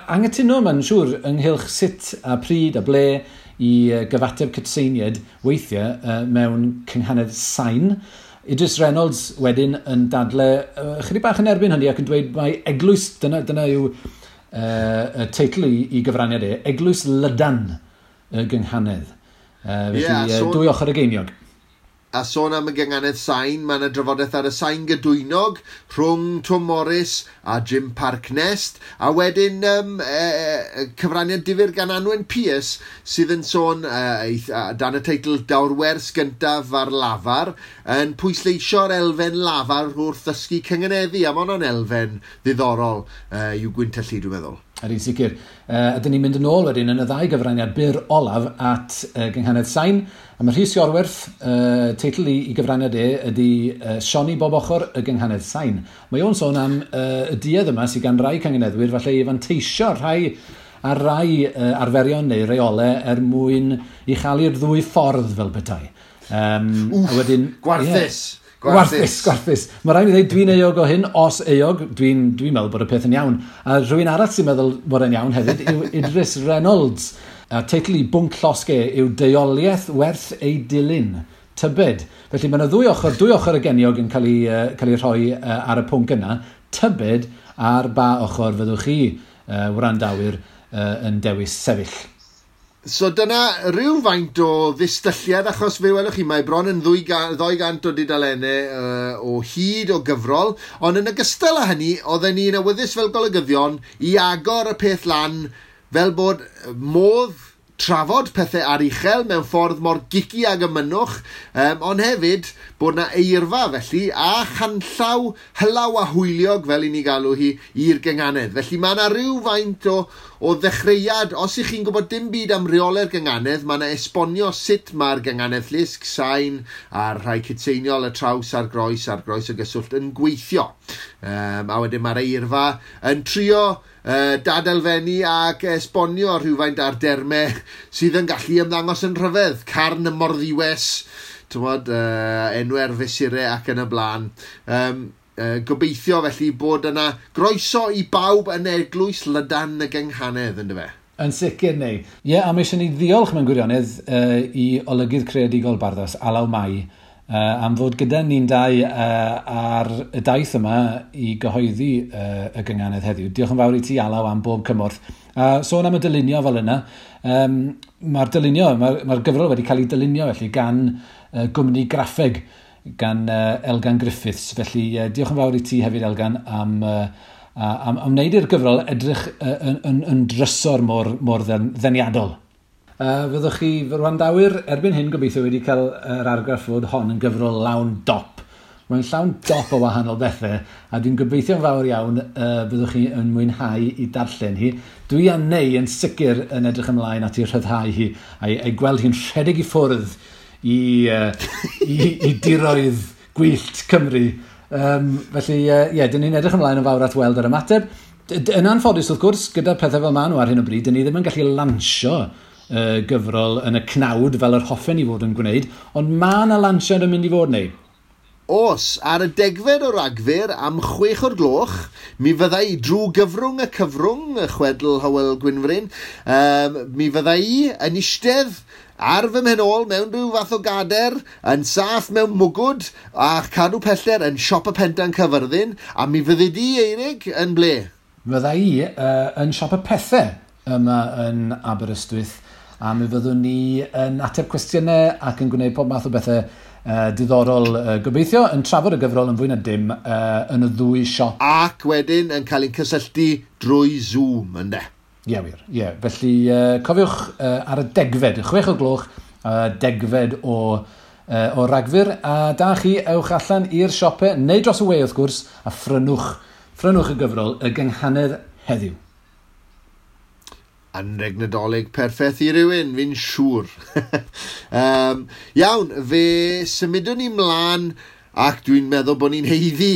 anghytuno mae'n siŵr ynghylch sut a pryd a ble i gyfateb cytseiniad weithiau mewn cynghanedd sain. Idris Reynolds wedyn yn dadle chydig bach yn erbyn hynny ac yn dweud mai eglwys, dyna yw y teitl i gyfraniad e, Eglwys Lydan y gynghanedd. Felly yeah, so, dwy ochr y geiniog. A sôn am y gynghanedd sain, mae yna drafodaeth ar y sain gydwynog rhwng Tom Morris a Jim Parknest, a wedyn cyfraniad difyr gan Anwen Pierce sydd yn sôn dan y teitl Daw'r wers gyntaf ar lafar, yn pwysleisio'r elfen lafar wrth ddysgu cynganeddu, a mae hwnna'n elfen ddiddorol i'w gwyntellu, dwi'n meddwl. Ydy'n sicr. Ydyn ni'n mynd yn ôl wedyn yn y ddau gyfraniad byr olaf at gynghanedd sain. A mae Rhys Iorwerth, teitl i gyfraniad e ydy Sioni Bob Ochr y gynghanedd sain. Mae o'n sôn am y duedd yma sydd gan rai cynganeddwyr falle i fanteisio rhai ar rai arferion neu reolau er mwyn i chael ddwy ffordd fel petai. Wff, a wedyn, gwarthus! Yeah. Gwarthus. Mae rhaid i ddweud, dwi'n euog o hyn, os euog, dwi'n meddwl bod y peth yn iawn. A rhywun arall sy'n meddwl bod e'n iawn hefyd yw Idris Reynolds. A teitl i bwnc llosge yw Deuoliaeth werth ei dilyn. Tybed. Felly mae yna ddwy ochr y geniog yn cael ei rhoi ar y pwnc yna. Tybed ar ba ochr fyddwch chi, wrandawyr, yn dewis sefyll. So dyna rhywfaint o ddistylliad, achos fe welwch chi, mae bron yn 200 o dudalennau o hyd o gyfrol, ond yn ogystal â hynny, oedden ni'n awyddus fel golygyddion i agor y peth lan fel bod modd trafod pethau aruchel mewn ffordd mor gici ag y mynnwch, ond hefyd bod na eirfa felly a chanllaw hylaw a hwyliog fel i ni galw hi i'r gynghanedd. Felly mae yna rhywfaint o ddechreuad. Os ych chi'n gwybod dim byd am reolau'r gynghanedd, mae yna esbonio sut mae'r gynghanedd llusg, sain a'r rhai cytseiniol, y traws a'r groes a'r groes o gyswllt yn gweithio. A wedyn mae'r eirfa yn trio dadelfennu ac esbonio rhywfaint ar dermau sydd yn gallu ymddangos yn rhyfedd. Carn y Morddiwes, tywod, enwau'r fesurau ac yn y blaen. Gobeithio felly bod yna groeso i bawb yn eglwys Lydan y gynghanedd, ynddo fe? Yn sicr neu. Ie, a mae eisiau ni ddiolch mewn gwirionedd i olygydd creadigol Barddas, Alaw Mai, am fod gyda ni'n dau ar y daith yma i gyhoeddi y gynghanedd heddiw. Diolch yn fawr i ti, Alaw, am bob cymorth. Sôn am y dylunio fel yna, mae'r dylunio, mae'r gyfrol wedi cael ei dylunio felly gan gwmni graffeg, gan Elgan Griffiths. Felly diolch yn fawr i ti hefyd, Elgan, am wneud i'r gyfrol edrych yn drysor mor ddeniadol. Fyddwch chi, fy wrandawyr, erbyn hyn gobeithio wedi cael yr argraff fod hon yn gyfrol lawn dop. Mae'n llawn dop o wahanol bethau, a dwi'n gobeithio'n fawr iawn byddwch chi yn mwynhau i darllen hi. Dwi a Neu yn sicr yn edrych ymlaen at ei rhyddhau hi, a'i gweld hi'n rhedeg i ffwrdd i diroedd gwyllt Cymru. Felly, ie, dyn ni'n edrych ymlaen yn fawr at weld yr ymateb. Yn anffodus, wrth gwrs, gyda pethau fel maen nhw ar hyn o bryd, dyn ni ddim yn gallu lansio gyfrol yn y cnawd fel yr hoffen i fod yn gwneud, ond mae yna lansiad yn mynd i fod neu? Os, ar y 10fed o Ragfyr am 6:00, mi fydda i drwy gyfrwng y cyfrwng, y chwedl Hywel Gwynfryn, mi fydda i yn eistedd ar fy mhen ôl mewn rhyw fath o gader, yn saff mewn mwgwd a cadw peller yn siop y Pentan Cyfyrddin, a mi fyddi di, Eirig, yn ble? Fydda i yn siop y Pethau yma yn Aberystwyth, a mi fyddwn ni yn ateb cwestiynau ac yn gwneud pob math o bethau diddorol, gobeithio, yn trafod y gyfrol yn fwy na dim yn y ddwy siop. Ac wedyn yn cael ein cysylltu drwy Zoom, ynde? Ie, wir. Ie. Felly, cofiwch ar y 10fed, 6:00 10fed o Ragfyr. A da chi, ewch allan i'r siopau, neu dros y we wrth gwrs, a phrynwch y gyfrol Y Gynghanedd heddiw. Anreg Nadolig perffaith i rywun, fi'n siŵr. Iawn, fe symudwn ni mlaen ac dwi'n meddwl bod ni'n haeddu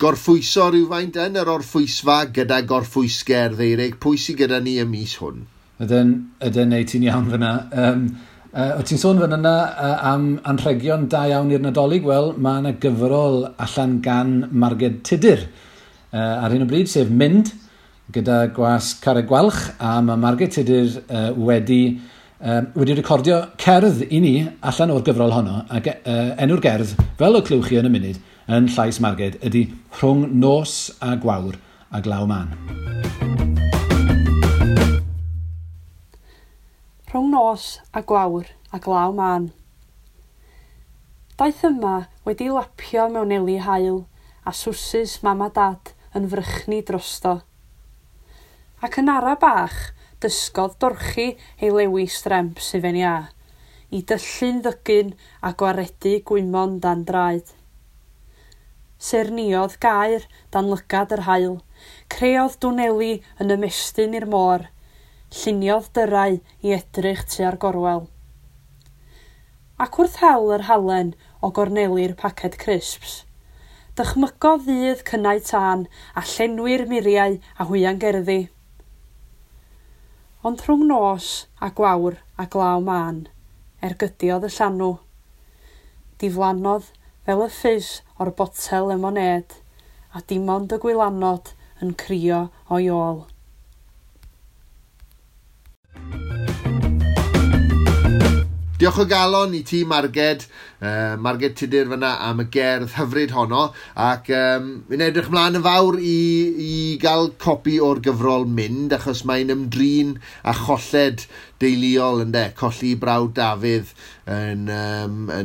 gorffwyso rhywfaint yn yr orffwysfa gyda gorffwysgerdd, Eirig. Pwy sydd gyda ni y mis hwn? Ydyn, neu ti'n iawn fyna. O ti'n sôn fan yna am anrhegion da iawn i'r Nadolig? Wel, mae yna gyfrol allan gan Marged Tudur ar hyn o bryd, sef Mynd, gyda gwas Carreg Gwalch, a mae Marged Tudur wedi recordio cerdd i ni allan o'r gyfrol honno, ac enw'r gerdd, fel y clywch chi yn y munud, yn llais Marged, ydy Rhwng Nos a Gwawr a Glaw Mân. Rhwng nos a gwawr a glaw mân. Daeth yma wedi lapio mewn eli haul a swsys mam a dad yn frychni drosto. Ac yn ara bach, dysgodd dorchi ei lewi stremp sydd ia, i dyllu'n ddygyn a gwaredu gwymon dan draed. Serniodd gair dan lygad yr haul, creodd dwneli yn ymestyn i'r môr, lluniodd dyrau i edrych tua'r gorwel. Ac wrth hel yr halen o gorneli'r paced crisps, dychmygodd ddydd cynnau tân a llenwi'r muriau a hwyan gerddi. Ond rhwng nos a gwawr a glaw mân, ergydiodd y llanw. Diflannodd fel y ffis o'r botel lemonêd, a dim ond y gwylanod yn crio o'i ôl. Diolch o galon i ti, Marged, Marged Tudur fyna am y gerdd hyfryd honno, ac fi'n edrych mlaen yn fawr i gael copi o'r gyfrol Mynd, achos mae'n ymdrin a cholled deuluol, ynde, colli brawd Dafydd yn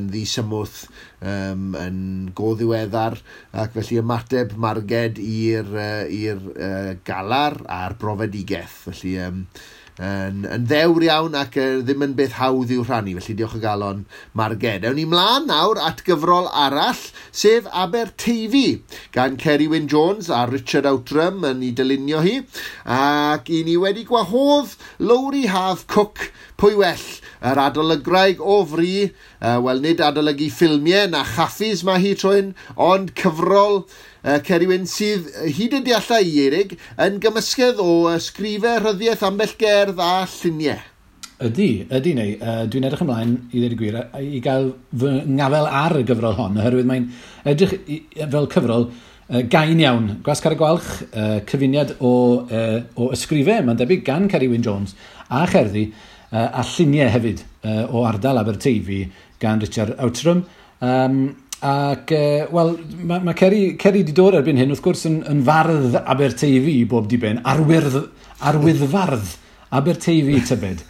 ddisymwth, yn go ddiweddar, ac felly ymateb Marged i'r galar a'r brofedigaeth, felly yn ddewr iawn ac ddim yn beth hawdd i'w rhannu, felly diolch o galon Marged. Ewn ni mlaen nawr at gyfrol arall, sef Aberteifi, gan Ceri Wyn Jones a Richard Outram yn ei dylunio hi, ac i ni wedi gwahodd Lowri Haf Cook, pwy well, yr adolygraig o fri, wel nid adolygu ffilmiau na chaffis mae hi trwy'n, ond cyfrol Ceri Wyn sydd hyd y dealla i Eirig yn gymysgedd o ysgrifau, rhyddiaeth, ambell gerdd a lluniau. Ydy neu. Dwi'n edrych ymlaen, i ddweud y gwir, i gael fy ngafel ar y gyfrol hon, oherwydd mae'n edrych fel cyfrol gain iawn. Gwas Carreg Gwalch, cyfuniad o ysgrifau, mae'n debyg gan Ceri Wyn Jones, a cherddi, a lluniau hefyd o ardal Aberteifi gan Richard Outram. Ac, wel, mae Ceri wedi dod erbyn hyn, wrth gwrs, yn fardd Aberteifi i bob diben, arwyddfardd Aberteifi tybed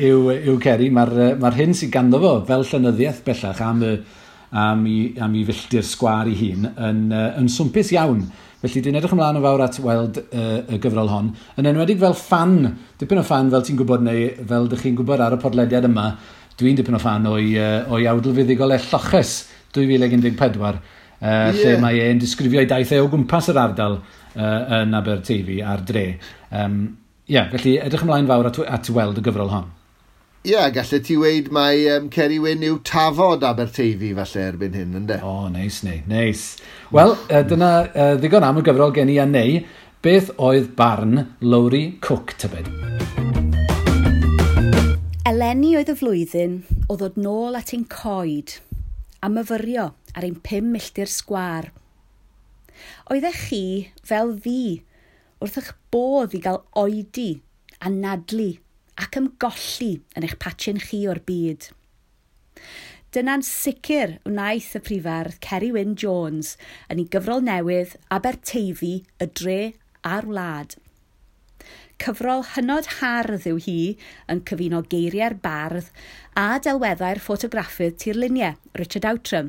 yw Ceri. Mae'r hyn sydd ganddo fo fel llenyddiaeth bellach am ei filltir sgwâr ei hun yn swmpus iawn. Felly dwi'n edrych ymlaen yn fawr at weld y gyfrol hon. Yn enwedig fel ffan, dipyn o ffan fel ti'n gwybod neu fel dych chi'n gwybod ar y podlediad yma, dwi'n dipyn o ffan o'i awdl fuddugol e Lloches 2014, lle mae e'n disgrifio ei daith e o gwmpas yr ardal yn Aberteifi a'r dre. Felly edrych ymlaen fawr at weld y gyfrol hon. Ie, gallet ti weud mai Ceri Wyn yw tafod Aberteifi falle erbyn hyn, ynde? O, neis, neis. Wel, dyna ddigon am y gyfrol gen i a neu. Beth oedd barn Lowri Cook, tybed? Eleni oedd y flwyddyn o ddod nôl at ein coed a myfyrio ar ein 5 milltir sgwâr. Oeddech chi, fel fi, wrth eich bodd i gael oedi a nadlu ac ymgolli yn eich patchyn chi o'r byd. Dyna'n sicr wnaeth y prifardd Ceri Wyn Jones yn ei gyfrol newydd Aberteifi, y dre a'r wlad. Cyfrol hynod hardd yw hi yn cyfuno geiriau'r bardd a delweddau'r ffotograffydd tirluniau, Richard Outram.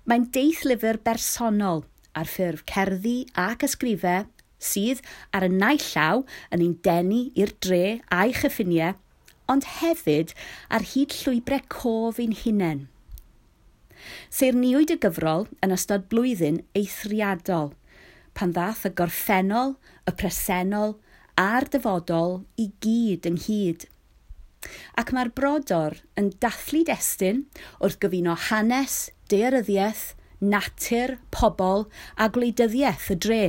Mae'n deithlyfr bersonol ar ffurf cerddi ac ysgrifau sydd ar y naill llaw yn ein denu i'r dre a'i chyffiniau, ond hefyd ar hyd llwybrau cof ein hunain. Seirniwyd y gyfrol yn ystod blwyddyn eithriadol, pan ddath y gorffennol, y presennol a'r dyfodol i gyd ynghyd. Ac mae'r brodor yn dathlu destun wrth gyfuno hanes, daearyddiaeth, natur, pobl a gwleidyddiaeth y dre.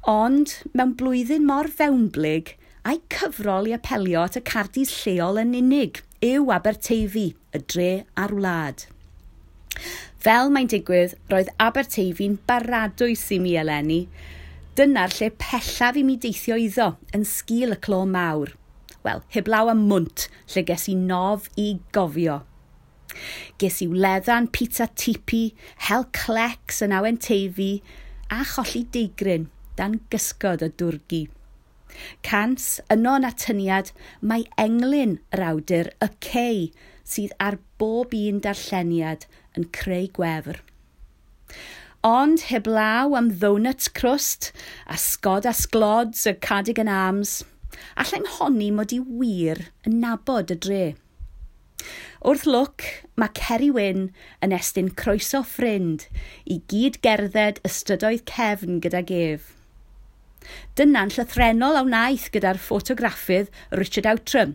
Ond mewn blwyddyn mor fewnblyg, a'i cyfrol i apelio at y cardis lleol yn unig yw Aberteifi, y dre a'r wlad. Fel mae'n digwydd, roedd Aberteifi'n baradwys i mi eleni. Dyna'r lle pellaf i mi deithio iddo yn sgil y clo mawr. Wel, heblaw am Mwnt, lle ges i nof i gofio. Ges i wleddan pizza tipi, hel clecs yn awen Teifi, a cholli deigryn dan gysgod y dwrgi. Cans, yno yn atyniad, mae englyn yr awdur y cei sydd ar bob un darlleniad yn creu gwefr. Ond heblaw am ddonut crust a sgod a sglods y Cardigan Arms, allai'm honni mod i wir yn nabod y dre. Wrth lwc, mae Ceri Wyn yn estyn croeso ffrind i gyd gerdded y strydoedd cefn gydag ef. Dyna'n llythrennol a wnaeth gyda'r ffotograffydd Richard Outram,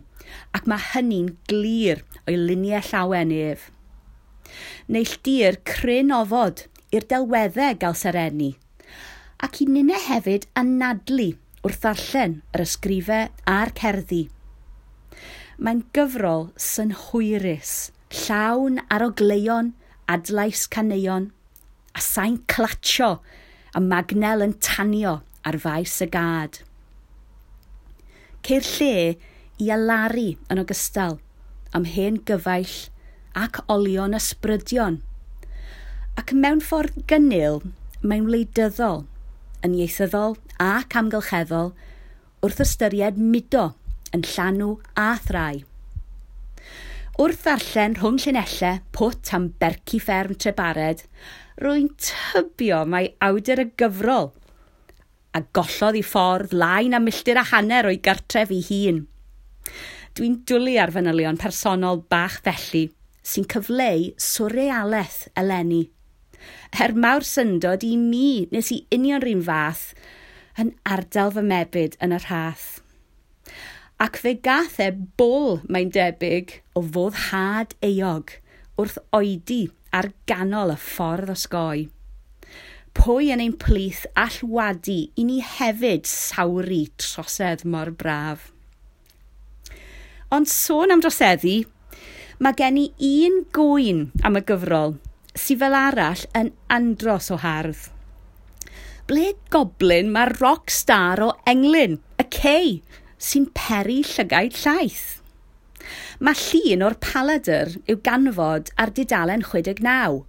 ac mae hynny'n glir o'i luniau llawen ef. Neilltuir cryn ofod i'r delweddau gael sereni, ac i ninne hefyd anadlu wrth ddarllen yr ysgrifau a'r cerddi. Mae'n gyfrol synhwyrus, llawn arogleuon, adlais caneuon, a sain clatsio a magnel yn tanio ar faes y gad. Ceir lle i alaru yn ogystal am hen gyfaill ac olion ysbrydion. Ac mewn ffordd gynnil, mae'n wleidyddol, yn ieithyddol ac amgylcheddol wrth ystyried mudo yn llanw a thrai. Wrth ddarllen rhwng llinellau pwt am berci fferm Trebared, rwy'n tybio mai awdur y gyfrol a gollodd ei ffordd lai na milltir a hanner o'i gartref ei hun. Dwi'n dwlu ar fanylion personol bach felly sy'n cyfleu swrealaeth eleni. Er mawr syndod i mi nes i union rhywun fath yn ardal fy mebyd yn y rhath. Ac fe gath e bol, mae'n debyg, o foddhad euog wrth oedi ar ganol y ffordd osgoi. Pwy yn ein plith all wadu i ni hefyd sawru trosedd mor braf? Ond sôn am droseddu, mae gen i un gŵyn am y gyfrol sydd fel arall yn andros o hardd. Ble goblin mae'r rock star o englyn, y cei, sy'n peri llygaid llaeth? Mae llun o'r paladr i'w ganfod ar dudalen 69,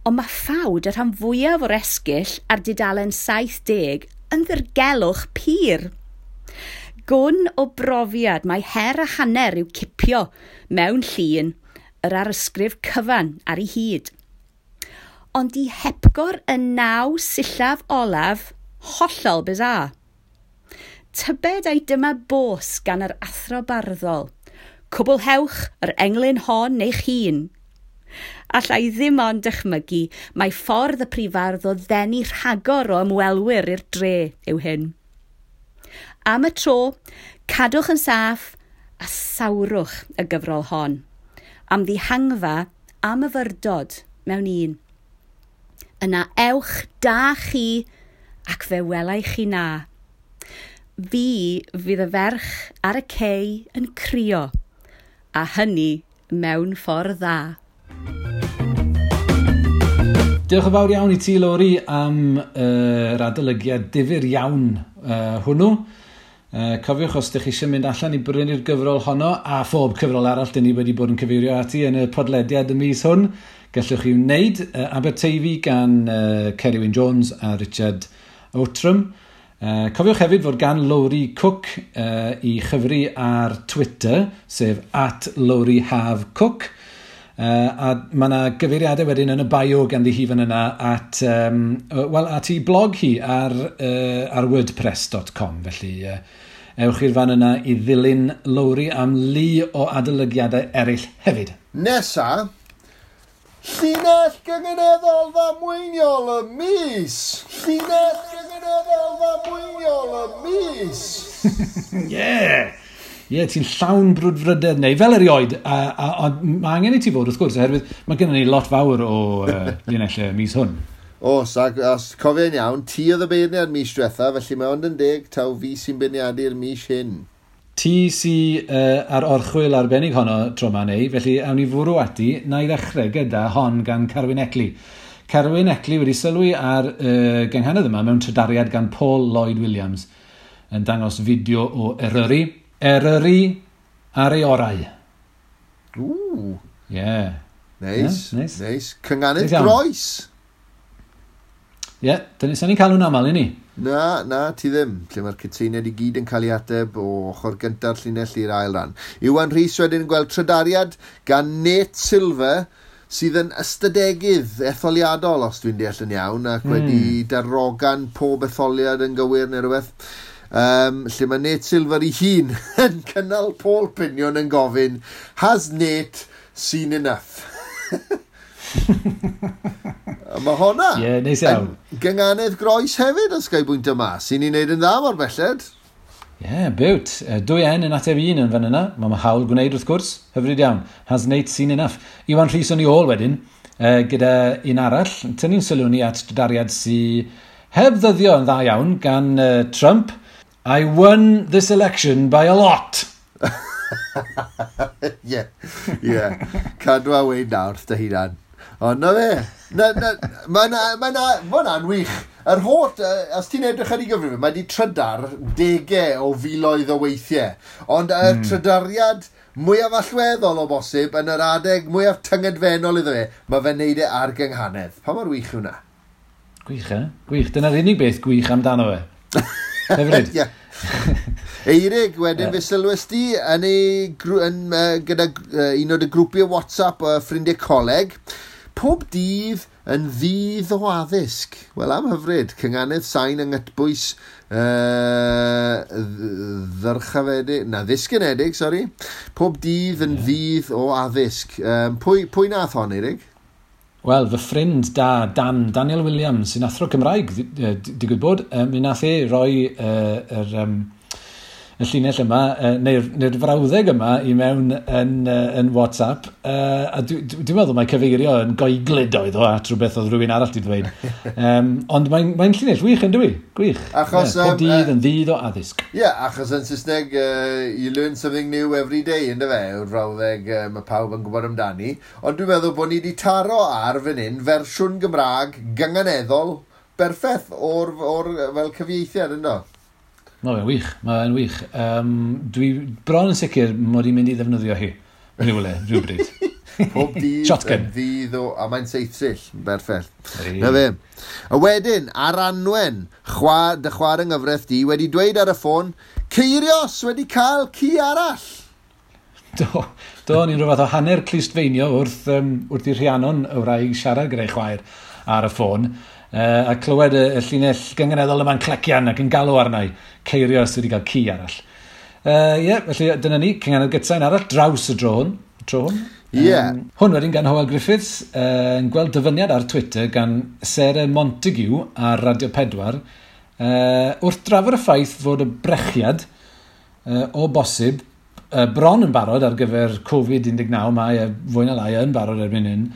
ond mae ffawd y rhan fwyaf o'r esgyll ar dudalen 70 yn ddirgelwch pur. Gwn o brofiad mae her a hanner i'w cipio mewn llun yr arysgrif cyfan ar ei hyd. Ond i hepgor y 9 sillaf olaf, hollol bizarre. Tybed ai dyma bos gan yr athro barddol. Cwblhewch yr englyn hon eich hun. Alla i ddim ond dychmygu mae ffordd y prifardd o ddenu rhagor o ymwelwyr i'r dre yw hyn. Am y tro, cadwch yn saff a sawrwch y gyfrol hon. Am ddihangfa a myfyrdod mewn un. Yna ewch da chi ac fe welai chi na. Fi fydd y ferch ar y cei yn crio, a hynny mewn ffordd dda. Diolch yn fawr iawn i ti, Lowri, am yr adolygiad difyr iawn hwnnw. Cofiwch, os ydych chi eisiau mynd allan i brynu'r gyfrol honno, a phob cyfrol arall dyn ni wedi bod yn cyfeirio ati yn y podlediad y mis hwn, gallwch chi wneud Aberteifi gan Ceri Wyn Jones a Richard Outram. Cofiwch hefyd fod gan Lowri Cook i chyfri ar Twitter, sef @LowriHafCook. A mae yna gyfeiriadau wedyn yn y bio ganddi hi fan yna at, at ei blog hi ar, ar wordpress.com. Felly Ewch i'r fan yna i ddilyn Lowri am lu o adolygiadau eraill hefyd. Nesa, llinell gynganeddol ddamweiniol y mis! Llinell gynganeddol ddamweiniol y mis! Yeah! Ie, yeah, ti'n llawn brwdfrydedd neu fel erioed, a mae angen i ti fod wrth gwrs, oherwydd mae gennym ni lot fawr o linellau mis hwn. Os, ac os cofio'n iawn, ti oedd y beirniad mis diwetha, felly mae ond yn deg taw fi sy'n beirniadu'r mis hyn. Ti sy ar orchwyl arbennig honno tro 'ma neu, felly awn ni fwrw ati, na i ddechrau gyda hon gan Carwyn Eckley. Carwyn Eckley wedi sylwi ar gynghanedd yma mewn trydariad gan Paul Lloyd Williams yn dangos fideo o Eryri. Eryri ar ei orau. Ww. Yeah. Neis, yeah, nice. Neis. Cynganedd Neis iawn. Groes. Ie, yeah, dyna sa'n ni'n cael nhw'n aml i ni. Na, ti ddim. Lle mae'r cytseiniaid i gyd yn cael ei ateb o ochr gynta'r llinell i'r ail ran. Iwan Rhys wedyn yn gweld trydariad gan Nate Silver, sydd yn ystadegydd etholiadol, os dwi'n deall yn iawn, ac wedi darogan pob etholiad yn gywir neu rhywbeth. Lle mae Nate Silver ei hun yn cynnal poll piniwn yn gofyn, "Has Nate seen enough?" A mae honna Ie, yeah, neis iawn. yn gynganedd groes hefyd, os ga i bwynt yma, sy'n ni'n neud yn dda mor belled. Ie, yeah, biwt. Dwy N yn ateb un yn fan yna. Mae hawl gwneud wrth gwrs. Hyfryd iawn. Has Nate seen enough? Iwan Rhys o'n i ôl wedyn, gyda un arall. Tynnu'n sylw ni at dariad sy heb ddyddio yn dda iawn gan Trump. "I won this election by a lot." Ie. Cadw a weud nawr dy hunan. Ond na fe. Na, ma hwnna'n wych. Yr holl, os ti'n edrych ar ei gyfrif, mae di trydar degau o filoedd o weithiau. Ond y trydariad mwyaf allweddol o bosib yn yr adeg mwyaf tyngedfennol iddo fe, mae fe'n neud e ar gynghanedd. Pa mor wych yw hwnna? Gwych, e? Gwych. Dyna'r unig beth gwych amdano fe. Hyfryd. Ie. Eirig, wedyn fe sylwes di yn ei, yn, gyda un o dy grwpiau WhatsApp o ffrindiau coleg. "Pob dydd yn ddydd o addysg." Wel, am hyfryd, cynganedd sain yng nghytbwys ddyrchafedig, na, ddisgynedig, sori. "Pob dydd yn ddydd o addysg." Pwy nath hon, Eirig? Wel, fy ffrind da, Dan, Daniel Williams, sy'n athro Cymraeg, digwydd bod, mi nath e roi y llinell yma, neu'r frawddeg yma i mewn yn WhatsApp, a dwi'n meddwl mai cyfeirio yn goeglyd oedd o at rhywbeth oedd rhywun arall di ddweud. Ond mae'n llinell wych yn dwi? Gwych. Achos, Ie, pob dydd yn ddydd o addysg. Ie, yeah, achos yn Saesneg, "you learn something new every day", ynddo fe, yw'r frawddeg mae pawb yn gwybod amdani. Ond dwi'n meddwl bod ni wedi taro ar fan hyn fersiwn Gymraeg gynganeddol berffaith o'r fel cyfieithiad, ynddo? Mae'n wych, mae'n wych. Dwi bron yn sicr mod i'n mynd i ddefnyddio hi. Rhywle, rhywbryd. Pob dydd Shotgun. yn ddydd o... A mae'n seithsill, yn berffaith. Ei. Na fe. A wedyn, ar Anwen, dy chwaer yng nghyfraith di, wedi dweud ar y ffôn, "Ceirios wedi cael ci arall." Do, ni'n rhywbeth o hanner clustfeinio wrth i Rhiannon y wraig siarad gyda'i chwaer ar y ffôn. A clywed y llinell gynganeddol yma'n clecian ac yn galw arna i. Ceirios wedi cael ci arall. Ie, yeah, felly dyna ni, cynganedd gytsain arall draws y dro hwn. Tro hwn. Ie. Hwn wedyn gan Hywel Griffiths, yn gweld dyfyniad ar Twitter gan Sarah Montague ar Radio 4, wrth drafod y ffaith fod y brechiad o bosib bron yn barod ar gyfer Covid-19, mae fwy na lai yn barod erbyn hyn.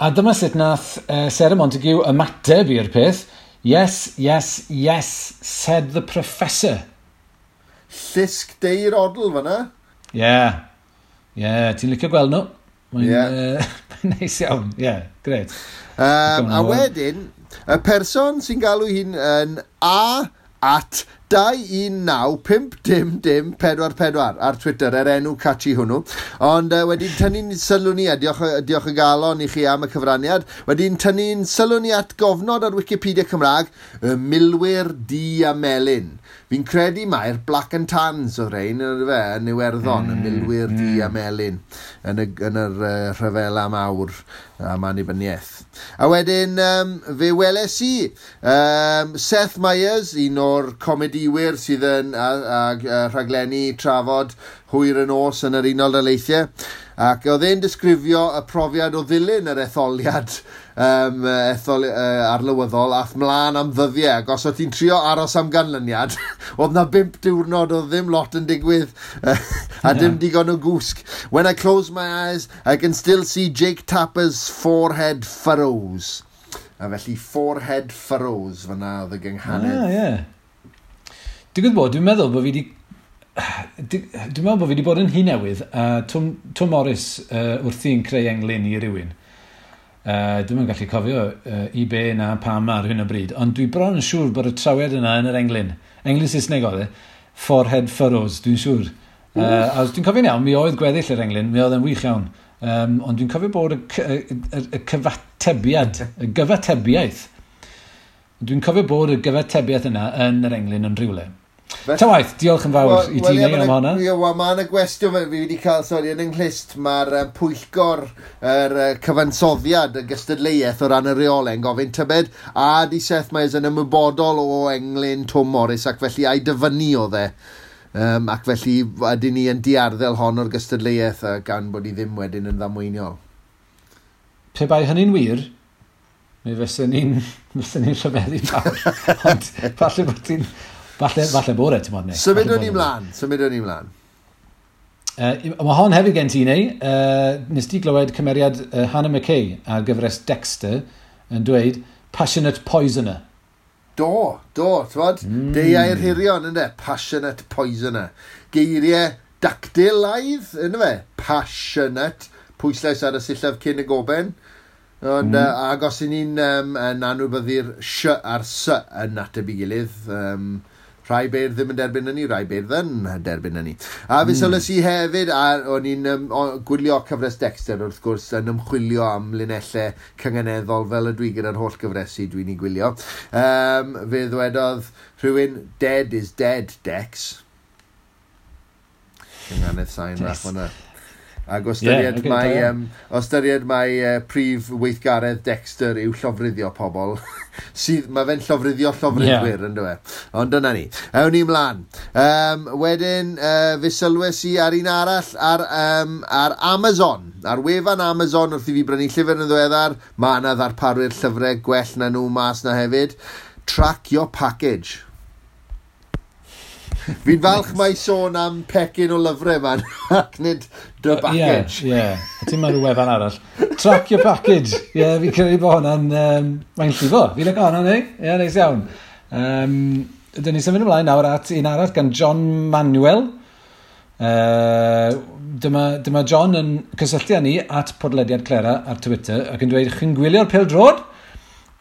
A dyma sut nath Sarah Montague ymateb i'r peth. "Yes, yes, yes, said the professor." Llusg deir odl fyna. Ie. Yeah. Ie, yeah, ti'n licio gweld nhw? Mae'n Ie. Neis iawn. Ie, yeah, gret. A wedyn, y person sy'n galw hun yn A at 219 5 0 0 4 4 ar Twitter, er enw catchy hwnnw. Ond wedyn tynnu'n sylw ni, a diolch y galon i chi am y cyfraniad, wedyn tynnu'n sylw ni at gofnod ar Wikipedia Cymraeg, y milwyr du a melyn. Fi'n credu mai'r Black and Tans oedd rhain, yn fe, yn Iwerddon, y milwyr du a melyn, yn yr rhyfela mawr am annibyniaeth. A wedyn, fe weles i Seth Meyers, un o'r comedïwyr diwyr sydd yn a rhaglenni trafod hwyr y nos yn yr Unol Daleithiau. Ac oedd e'n disgrifio y profiad o ddilyn yr etholiad arlywyddol ath mlaen am ddyddiau. Ac os oedd ti'n trio aros am ganlyniad, oedd na 5 diwrnod oedd ddim lot yn digwydd a dim digon o gwsg. "When I close my eyes, I can still see Jake Tapper's forehead furrows." A felly forehead furrows fyna oedd y gynghanedd. Ah, ie. Digwydd bod, dwi'n meddwl bod fi wedi bod yn Nhŷ Newydd, a Twm Morris wrthi'n creu englyn i rywun. Dwi'm yn gallu cofio i be na pam ar hyn o bryd, ond dwi bron yn siŵr bod y trawiad yna yn yr englyn. Englyn Saesneg oedd e. Forehead furrows, dwi'n siŵr. A os dwi'n cofio'n iawn, mi oedd gweddill yr englyn, mi oedd yn wych iawn. Ond dwi'n cofio bod y cyfatebiad, y gyfatebiaeth, dwi'n cofio bod y gyfatebiaeth yna yn yr englyn yn rhywle. Ta waith, diolch yn fawr i ti, neu, am hwnna. Ie, wel, mae yna gwestiwn fi wedi cael, sori, yn yng nghlust, mae'r pwyllgor yr cyfansoddiad y gystadleuaeth o ran y reolau yn gofyn tybed a di Seth Meyers yn ymwybodol o englyn Twm Morris ac felly a'i dyfynnu oedd e. Ac felly ydyn ni yn diarddel hon o'r gystadleuaeth gan bod hi ddim wedyn yn ddamweiniol. Pe bai hynny'n wir, mi fysen ni'n rhyfeddu fawr. Ond falle bod ti'n... Falle bod e, ti'n modd, neu. Symudwn ni mlaen, symudwn ni mlaen. Mae hon hefyd gen ti, neu. Nes ti glywed cymeriad Hannah McKay ar gyfres Dexter yn dweud "passionate poisoner". Do, do, t'wod? Deuai'r hirion, ynddo? Passionate poisoner. Geiriau dactylaidd, ynddo fe? Passionate. Pwyslais ar y sillaf cyn y goben. Ond, ac os y'n ni'n yn anwybyddu'r sh a'r s yn ateb i gilydd, rhai beirdd ddim yn derbyn hynny, rhai beirdd yn derbyn hynny. A fe sylwes i hefyd, a o'n i'n gwylio cyfres Dexter wrth gwrs, yn ymchwilio am linellau cynganeddol fel ydw i gyda'r holl gyfresi dwi'n ei gwylio. Fe ddwedodd rhywun, "Dead is dead, Dex." Cynganedd sain fach hwnna. Ac o ystyried Ie, ocê, mai, da iawn. o ystyried mai prif weithgaredd Dexter yw llofruddio pobl, sydd, mae fe'n llofruddio llofruddwyr, yeah. Ynddo fe. Ond dyna ni. Ewn ni mlaen. Wedyn, fe sylwes i ar un arall ar Amazon. Ar wefan Amazon, wrth i fi brynu llyfr yn ddiweddar, mae yna ddarparwyr llyfrau gwell na nhw mas na hefyd. "Track your package." Fi'n falch mai sôn am pecyn o lyfrau man, ac nid dy package. Ie, ie. A ti'n meddwl wefan arall. Track your package. Ie, yeah, fi'n credu bod hwnna'n... Mae'n llifo. Fi'n licio hwnna, neu? Ie, yeah, neis iawn. Dyn ni symud ymlaen nawr at un arall gan John Manuel. Dyma John yn cysylltu â ni at podlediad Clera ar Twitter ac yn dweud, "Chi'n gwylio'r pêl-droed?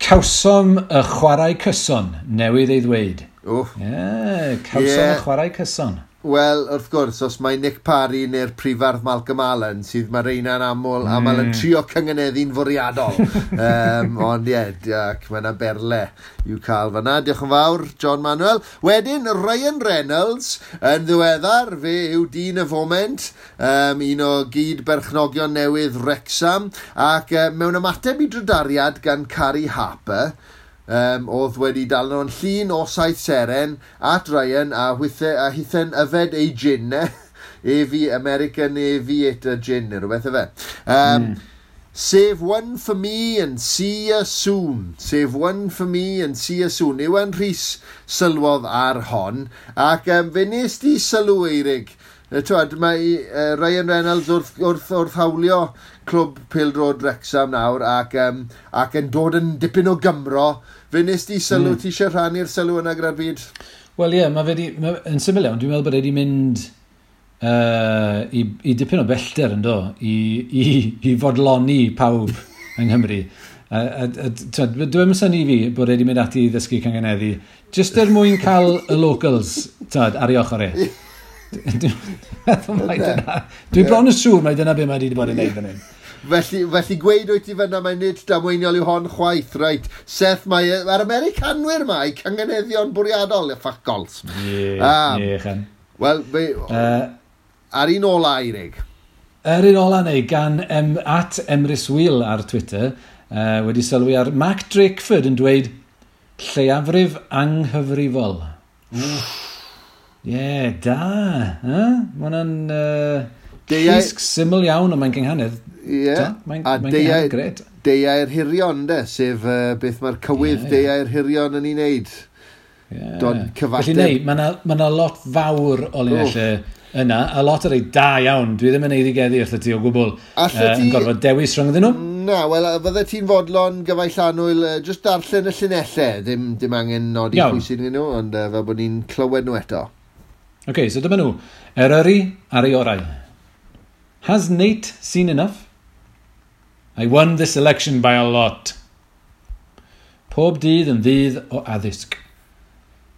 Cawsom y chwarae cyson newydd ei ddweud." Wff. Ie, yeah, cawsom y chwarae cyson. Wel, wrth gwrs, os mae Nick Parry neu'r prifardd Malcolm Allen, sydd mae reina'n aml yn trio cynganeddu'n fwriadol. Ond ie, ac mae yna berle i'w cael fyna. Diolch yn fawr, John Manuel. Wedyn, Ryan Reynolds, yn ddiweddar, fe yw dyn y foment, un o gyd berchnogion newydd Wrexham, ac mewn ymateb i drydariad gan Carrie Harper, oedd wedi dal nhw'n llun o saith seren at Ryan a hithen yfed ei gin, e. Avi, American Aviator Gin, neu rhywbeth efe. "Save one for me and see you soon. Save one for me and see you soon." Iwan Rhys sylwodd ar hon, ac fe nes di sylw, Eirig. T'wod, mae Ryan Reynolds wrth hawlio clwb pêl-droed Wrexham nawr ac yn dod yn dipyn o Gymro. Fe nes di sylw, ti eisiau rhannu'r sylw yna gyda'r byd? Wel ie, mae fe di, yn syml iawn, dwi'n meddwl bod e wedi mynd i dipyn o bellter yn do, i fodloni pawb yng Nghymru. A dwi'n synnu fi bod e wedi mynd ati i ddysgu cynganeddu, jyst er mwyn cael y locals, t'wod, ar ei ochr e. Dwi'n meddwl mai dyna. Dwi'n bron yn siŵr mai dyna be mae wedi bod yn neud fan hyn. Felly gweud wyt ti fyna mae nid damweiniol yw hon chwaith, reit. Seth, mae'r Americanwyr ma, i cynganeddion bwriadol, fuck gols. Ie, ie, chan. Wel, ar un ola, Eirig. Yr un ola neu gan at Emrys Wheel ar Twitter, wedi sylwi ar Mark Drakeford yn dweud "lleiafrif anghyfrifol". Ie, yeah, da. Eh? Mae hwnna'n llusg syml iawn, ond mae'n gynghanedd. Ie. Yeah. Mae'n mae gynghanedd gret. Deiau'r hirion, de, sef beth mae'r cywydd yeah, yeah. Deiau'r hirion yn ei wneud. Yeah. Dod cyfateb. Felly neu, mae yna lot fawr o linellau yna, a lot o rei da iawn. Dwi ddim yn eiddigeddu wrth ti o gwbl. Allet ti... Yn gorfod dewis rhyngddyn nhw? Na, wel, fydde ti'n fodlon gyfaill annwyl, just darllen y llinellau. Dim angen nodi pwy sy'n nhw, ond fel bod ni'n clywed nhw eto. Oce, okay, so dyma nhw. Eryri ar ei orau. Has Nate seen enough? I won this election by a lot. Pob dydd yn ddydd o addysg.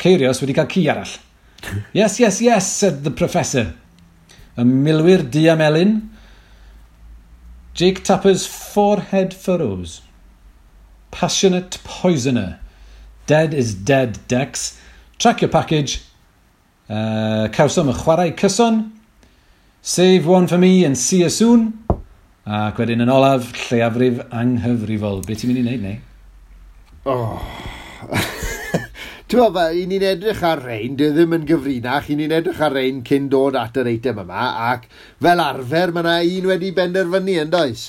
Ceirios wedi cael ci arall. Yes, yes, yes, said the professor. Y milwyr du a melyn. Jake Tapper's forehead furrows. Passionate poisoner. Dead is dead, Dex. Track your package. Cawsom y chwarae cyson. Save one for me and see you soon. Ac wedyn yn olaf, lleiafrif anghyfrifol. Be ti'n mynd i wneud, neu? Oh. Ti'n meddwl, i ni'n edrych ar rein, dwi ddim yn gyfrinach, i ni'n edrych ar rein cyn dod at yr eitem yma, ac fel arfer mae yna un wedi benderfynu, yn does?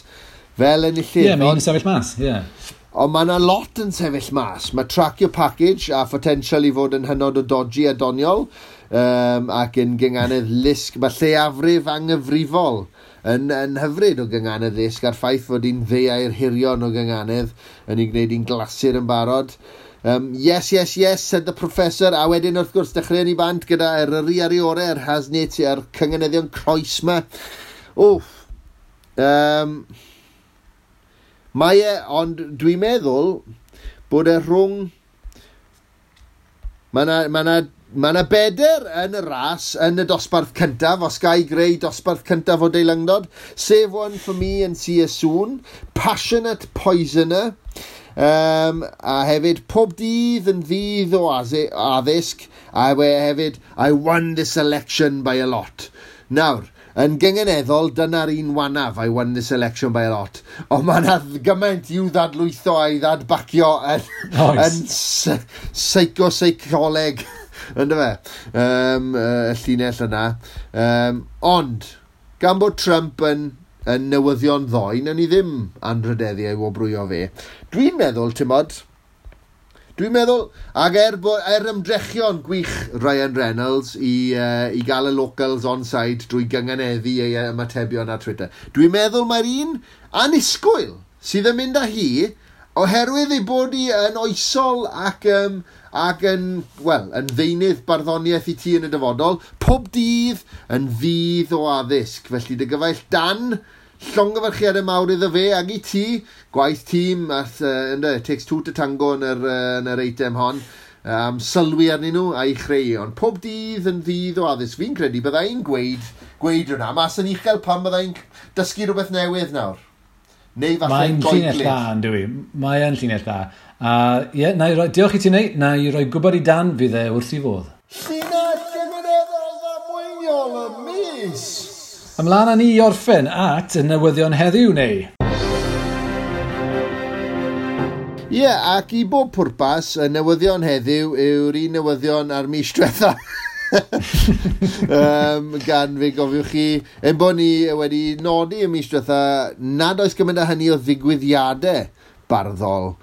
Fel enillydd. Ie, yeah, mae un yn sefyll mas, ie. Yeah. Ond mae yna lot yn sefyll mas. Mae track your package a potential i fod yn hynod o dodgy a doniol, ac yn gynganedd lusg. Mae lleiafrif anghyfrifol yn hyfryd o gynganedd lusg, a'r ffaith fod hi'n ddeiau'r hirion o gynganedd yn ei gwneud hi'n glasur yn barod. Yes, yes, yes, said the professor. A wedyn, wrth gwrs, dechreuon ni bant gyda Eryri ar ei orau, yr Hasnit, a'r cynganeddion croes ma. Wff. Mae e, ond dwi'n meddwl bod e rhwng... Mae yna beder yn y ras yn y dosbarth cyntaf, os ga i greu dosbarth cyntaf o deilyngdod. Save one for me and see you soon. Passionate Poisoner. A hefyd, pob dydd yn ddydd o addysg. A hefyd, I won this election by a lot. Nawr, yn gynganeddol, dyna'r un wanaf, I won this election by a lot. Ond mae yna gymaint i'w ddadlwytho a'i ddadbacio yn, yn psycho-seicoleg, ynddo fe, y llinell yna. Ond, gan bod Trump yn newyddion ddoe, nawn ni ddim anrhydeddu ei wobrwyo fe. Dwi'n meddwl, ti'mod, dwi'n meddwl, ac er ymdrechion gwych Ryan Reynolds i gael y locals on side drwy gynganeddu ei ymatebion ar Twitter, dwi'n meddwl mae'r un annisgwyl sydd yn mynd â hi, oherwydd ei bod hi yn oesol ac yn, wel, yn ddeunydd barddoniaeth i ti yn y dyfodol, pob dydd yn ddydd o addysg. Felly dy gyfaill Dan, llongyfarchiadau mawr iddo fe ag i ti, gwaith tîm, it takes two to tango yn yr eitem hon, sylwi arnyn nhw a'i chreu. Ond pob dydd yn ddydd o addysg. Fi'n credu byddai'n gweud hwnna, mas yn uchel pan byddai'n dysgu rhywbeth newydd nawr. Neu falle Mae'n llinell dda, yn dwi. Mae'n llinell dda. A ie, diolch i ti neu, na i roi gwybod i Dan fydd e wrth i fodd. Llinell gymunedol ddamweiniol y mis! Ymlaen â ni i orffen at y newyddion heddiw, neu? Ie, ac i bob pwrpas, y newyddion heddiw yw'r un newyddion ar mis diwetha. Gan fe gofiwch chi, ein bod ni wedi nodi y mis diwetha nad oes gymaint â hynny o ddigwyddiadau barddol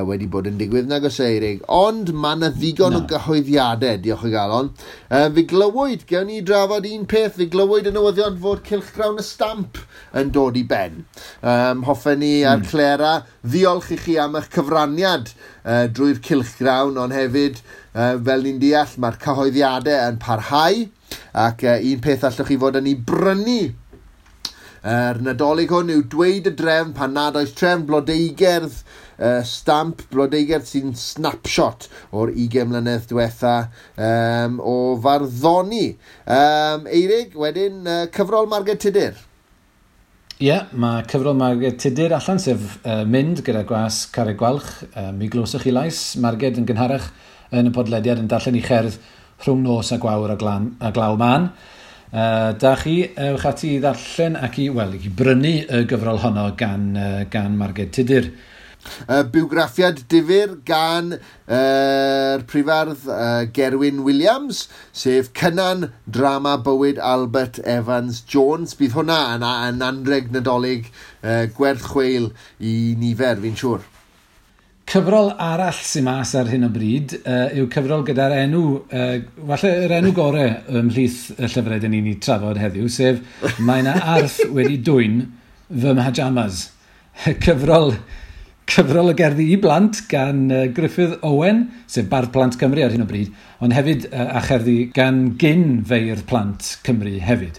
wedi bod yn digwydd nag oes Eirig, ond mae yna ddigon o gyhoeddiadau, diolch o galon. Fe glywyd, gewn ni drafod un peth, fe glywyd y newyddion fod Cylchgrawn y Stamp yn dod i ben. Hoffen ni a'r Clera ddiolch i chi am eich cyfraniad drwy'r Cylchgrawn, ond hefyd, fel ni'n deall, mae'r cyhoeddiadau yn parhau, ac un peth allwch chi fod yn ei brynu yr Nadolig hwn yw dweud y drefn pan nad oes trefn blodeugerdd, stamp blodeugerdd sy'n snapshot o'r 20 mlynedd diwetha o farddoni. Eirig, wedyn, cyfrol Marged Tudur. Ie, yeah, mae cyfrol Marged Tudur allan, sef mynd gyda gwas Carreg Gwalch. Mi glywsoch chi lais Marged yn gynharach yn y podlediad yn darllen i cherdd rhwng nos a gwawr a glaw man. Da chi, ewch ati i ddarllen ac i brynu y gyfrol honno gan Marged Tudur. Bywgraffiad difyr gan yr prifardd Gerwyn Williams, sef Cynan Drama Bywyd Albert Evans Jones. Bydd hwnna yn anreg Nadolig gwerth chweil i nifer, fi'n siŵr. Cyfrol arall sy'n mas ar hyn o bryd yw cyfrol gyda'r enw, falle yr enw gorau ymhlith y llyfrau dyn ni'n ei trafod heddiw, sef Mae 'na arth wedi dwyn fy mhajamas. Cyfrol y gerddi i blant gan Gruffudd Owen, sef Bardd Plant Cymru ar hyn o bryd, ond hefyd a cherddi gan gyn feirdd plant Cymru hefyd.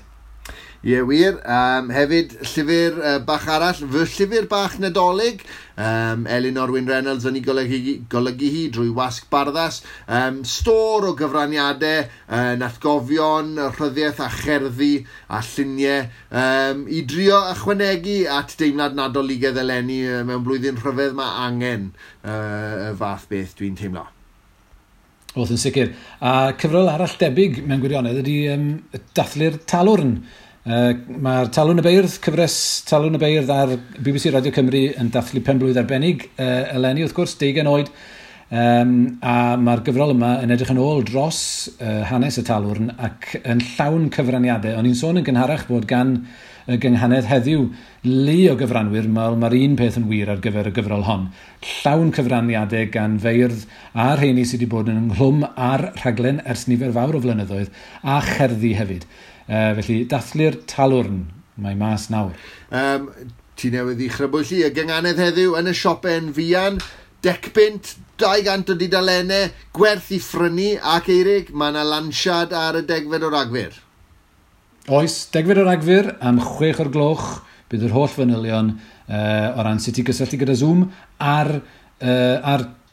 Ie, wir. Hefyd, llyfr bach arall, fy llyfr bach Nadolig, Elinor Wyn Reynolds yn ei golygu hi drwy Wasg Barddas. Stôr o gyfraniadau, atgofion, rhyddiaeth a cherddi a lluniau, i drio ychwanegu at deimlad Nadoligaidd eleni mewn blwyddyn rhyfedd. Mae angen y fath beth, dwi'n teimlo. Oedd yn sicr. A cyfrol arall debyg mewn gwirionedd ydy Dathlu'r Talwrn. Mae'r Talwrn y Beirdd, cyfres Talwrn y Beirdd ar BBC Radio Cymru yn dathlu penblwydd arbennig eleni, wrth gwrs, 20 oed. A mae'r gyfrol yma yn edrych yn ôl dros hanes y Talwrn ac yn llawn cyfraniadau. O'n i'n sôn yn gynharach bod gan y gynghanedd heddiw lu o gyfranwyr, mae'r un peth yn wir ar gyfer y gyfrol hon. Llawn cyfraniadau gan feirdd a rheini sydd wedi bod yn ynghlwm ar rhaglen ers nifer fawr o flynyddoedd, a cherddi hefyd. Felly, Dathlu'r Talwrn, mae mas nawr. Ti newydd i chrybwyll i, y gynghanedd heddiw yn y siope'n fuan, 10 bunt, 200 o dudalennau, gwerth i phrynu, ac Eirig, mae yna lansiad ar y 10fed o Ragfyr. Oes, 10fed o Ragfyr am 6 o'r gloch, bydd yr holl fanylion o ran sut i gysylltu gyda Zoom ar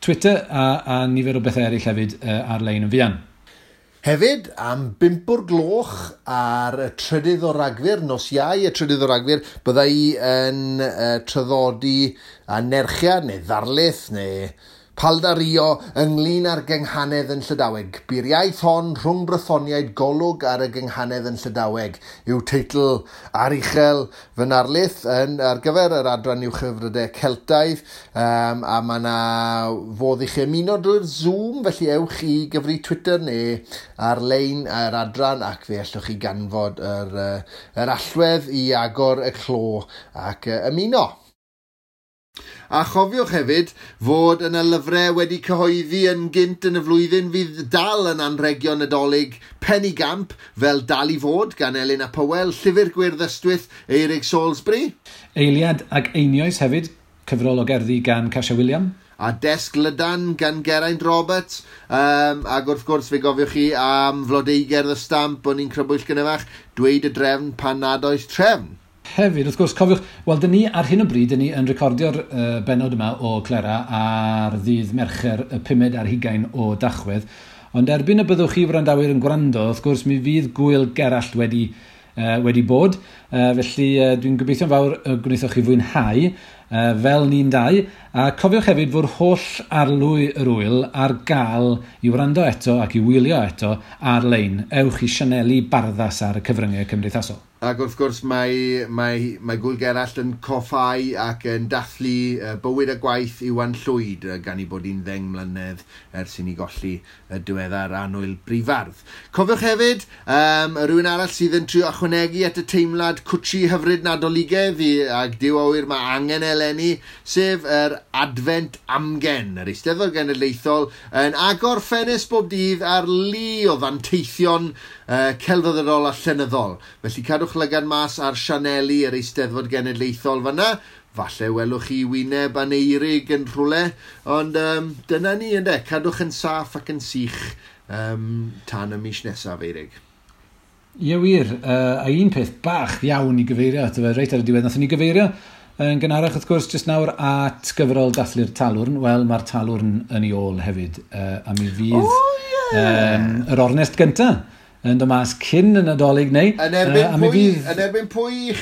Twitter a nifer o bethau eraill hefyd ar-lein yn fuan. Hefyd, am 5 o'r gloch ar y 3 o Ragfyr, nos Iau y 3 o Ragfyr, bydda i yn traddodi anerchiad neu ddarlith neu paldario ynglyn â'r gynghanedd yn Llydaweg. "Bu'r iaith hon rhwng Brythoniaid, golwg ar y gynghanedd yn Llydaweg" yw teitl aruchel fy narlith ar gyfer yr adran uwchhyfrydau Celtaidd, a mae yna fodd i chi ymuno drwy'r Zoom, felly ewch i gyfri Twitter neu ar-lein yr adran ac fe allwch chi ganfod yr allwedd i agor y clo ac ymuno. A chofiwch hefyd fod yna lyfrau wedi cyhoeddi yn gynt yn y flwyddyn fydd dal yn anregion Nadolig penigamp, fel Dal i Fod gan Elin ap Hywel, Llyfr Gwyrdd Ystwyth, Eirig Salisbury. Eiliad ag Einioes hefyd, cyfrol o gerddi gan Casia Wiliam. A Desg Lydan gan Geraint Roberts. Ac wrth gwrs fe gofiwch chi am Flodeugerdd y Stamp o'n i'n crybwyll gynharach, Dweud y Drefn Pan Nad Oes Trefn. Hefyd, wrth gwrs, cofiwch, wel, dyn ni ar hyn o bryd, dyn ni yn recordio'r benod yma o Clera ar ddydd Mercher y 25 o Dachwedd, ond erbyn y byddwch chi wrandawyr yn gwrando, wrth gwrs, mi fydd Gwyl Gerallt wedi bod, felly dwi'n gobeithio'n fawr y gwnaethoch chi fwynhau, fel ni'n dau, a cofiwch hefyd fod holl arlwy yr wyl ar gael i wrando eto ac i wylio eto ar-lein. Ewch i sianeli Barddas ar y cyfryngau cymdeithasol. Ac wrth gwrs mae Gwyl Gerallt yn coffau ac yn dathlu bywyd a gwaith Iwan Llwyd, gan i bod hi'n 10 mlynedd ers i ni golli y diweddar annwyl brifardd. Cofiwch hefyd, rhywun arall sydd yn trio ychwanegu at y teimlad cwtsi hyfryd Nadoligaidd i, ac Duw a ŵyr mae angen eleni, sef yr Advent Amgen, yr Eisteddfod Genedlaethol, yn agor ffenest bob dydd ar lu o ddanteithion celfyddydol a llenyddol. Felly cadwch lygad mas ar sianeli yr Eisteddfod Genedlaethol fyna. Falle welwch chi wyneb Aneirig yn rhywle, ond dyna ni ynde, cadwch yn saff ac yn sych tan y mis nesaf, Eirig. Ie wir, a un peth bach iawn i gyfeirio ato fe reit ar y diwedd, nathon ni gyfeirio yn gynharach wrth gwrs jyst nawr at gyfrol Dathlu'r Talwrn. Wel, mae'r Talwrn yn ei ôl hefyd, a mi fydd oh, yeah. yr ornest gyntaf yn dod mas cyn y Nadolig neu. Yn erbyn, pwy, fydd... yn erbyn pwy i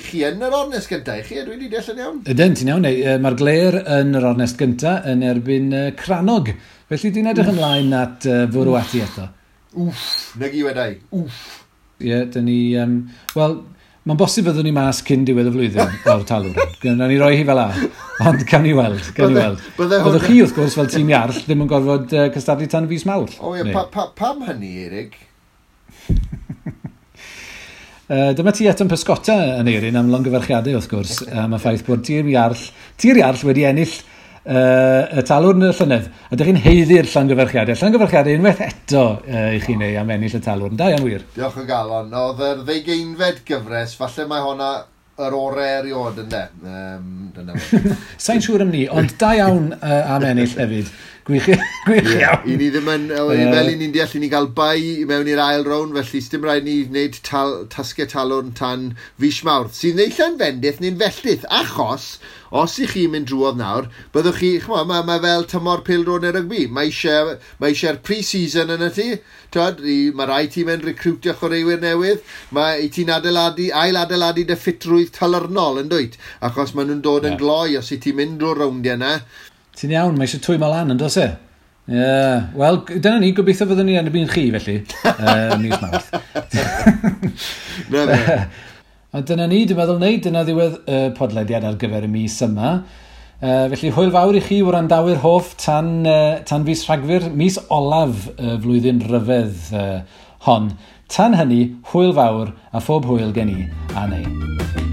chi yn yr ornest gyntaf? I chi, dwi wedi deall yn iawn? Ydyn, ti'n iawn. Mae'r Gler yn yr ornest gyntaf yn erbyn Crannog. Felly dwi'n edrych ymlaen at fwrw ati eto. Wff, nag i wedai. Wff. Ie, yeah, dyn ni... Wel, Mae'n bosib fyddwn ni mas cyn diwedd y flwyddyn o'r talwrn. Gwnawn ni roi hi fel a, ond cawn ni weld. Cawn ni weld. Byddwch chi, wrth gwrs, fel tîm Iarll, ddim yn gorfod cystadlu tan fis Mawrth. O ie, pam hynny, Eirig? Dyma ti eto'n pysgota yn Eirin am longyfarchiadau, wrth gwrs, am y ffaith bod Tir Iarll wedi ennill y talwrn y llynedd. A dych chi'n haeddu'r llongyfarchiadau. Llongyfarchiadau unwaith eto i chi neu am ennill y talwrn. Da iawn wir. Diolch o galon. Oedd yr 20fed gyfres, falle mae honna yr orau erioed ynde. Dyna fo. Sa'n siŵr am ni, ond da iawn am ennill hefyd. Gwych, gwych iawn. I ni ddim yn, fel i ni'n deall, i ni gael bai i mewn i'r ail rown, felly sdim rhaid ni wneud tasgau talwrn tan fis Mawrth, sy'n neillau'n fendith neu'n felltith, achos os i chi'n mynd drwodd nawr, byddwch chi, ch'mo, mae fel tymor pêl-droed neu rygbi, mae eisiau'r pre-season yn y ti, twod, mae rai ti'n mynd recrwtio chwaraewyr newydd, mae i ti'n ail-adeiladu dy ffitrwydd talyrnol yn dwyt, achos maen nhw'n dod yn gloi os i ti'n mynd drwy'r rowndiau yna. Ti'n iawn, mae eisiau twymo lan yn does e? Yeah. Wel, dyna ni, gobeithio fyddwn ni yn erbyn chi, felly, mis Mawrth. Na fe. A dyna ni, dwi'n meddwl wneud, dyna ddiwedd y podlediad ar gyfer y mis yma. Felly, hwyl fawr i chi wrandawyr hoff tan fis Rhagfyr, mis olaf y flwyddyn ryfedd hon. Tan hynny, hwyl fawr a phob hwyl gen i a neu.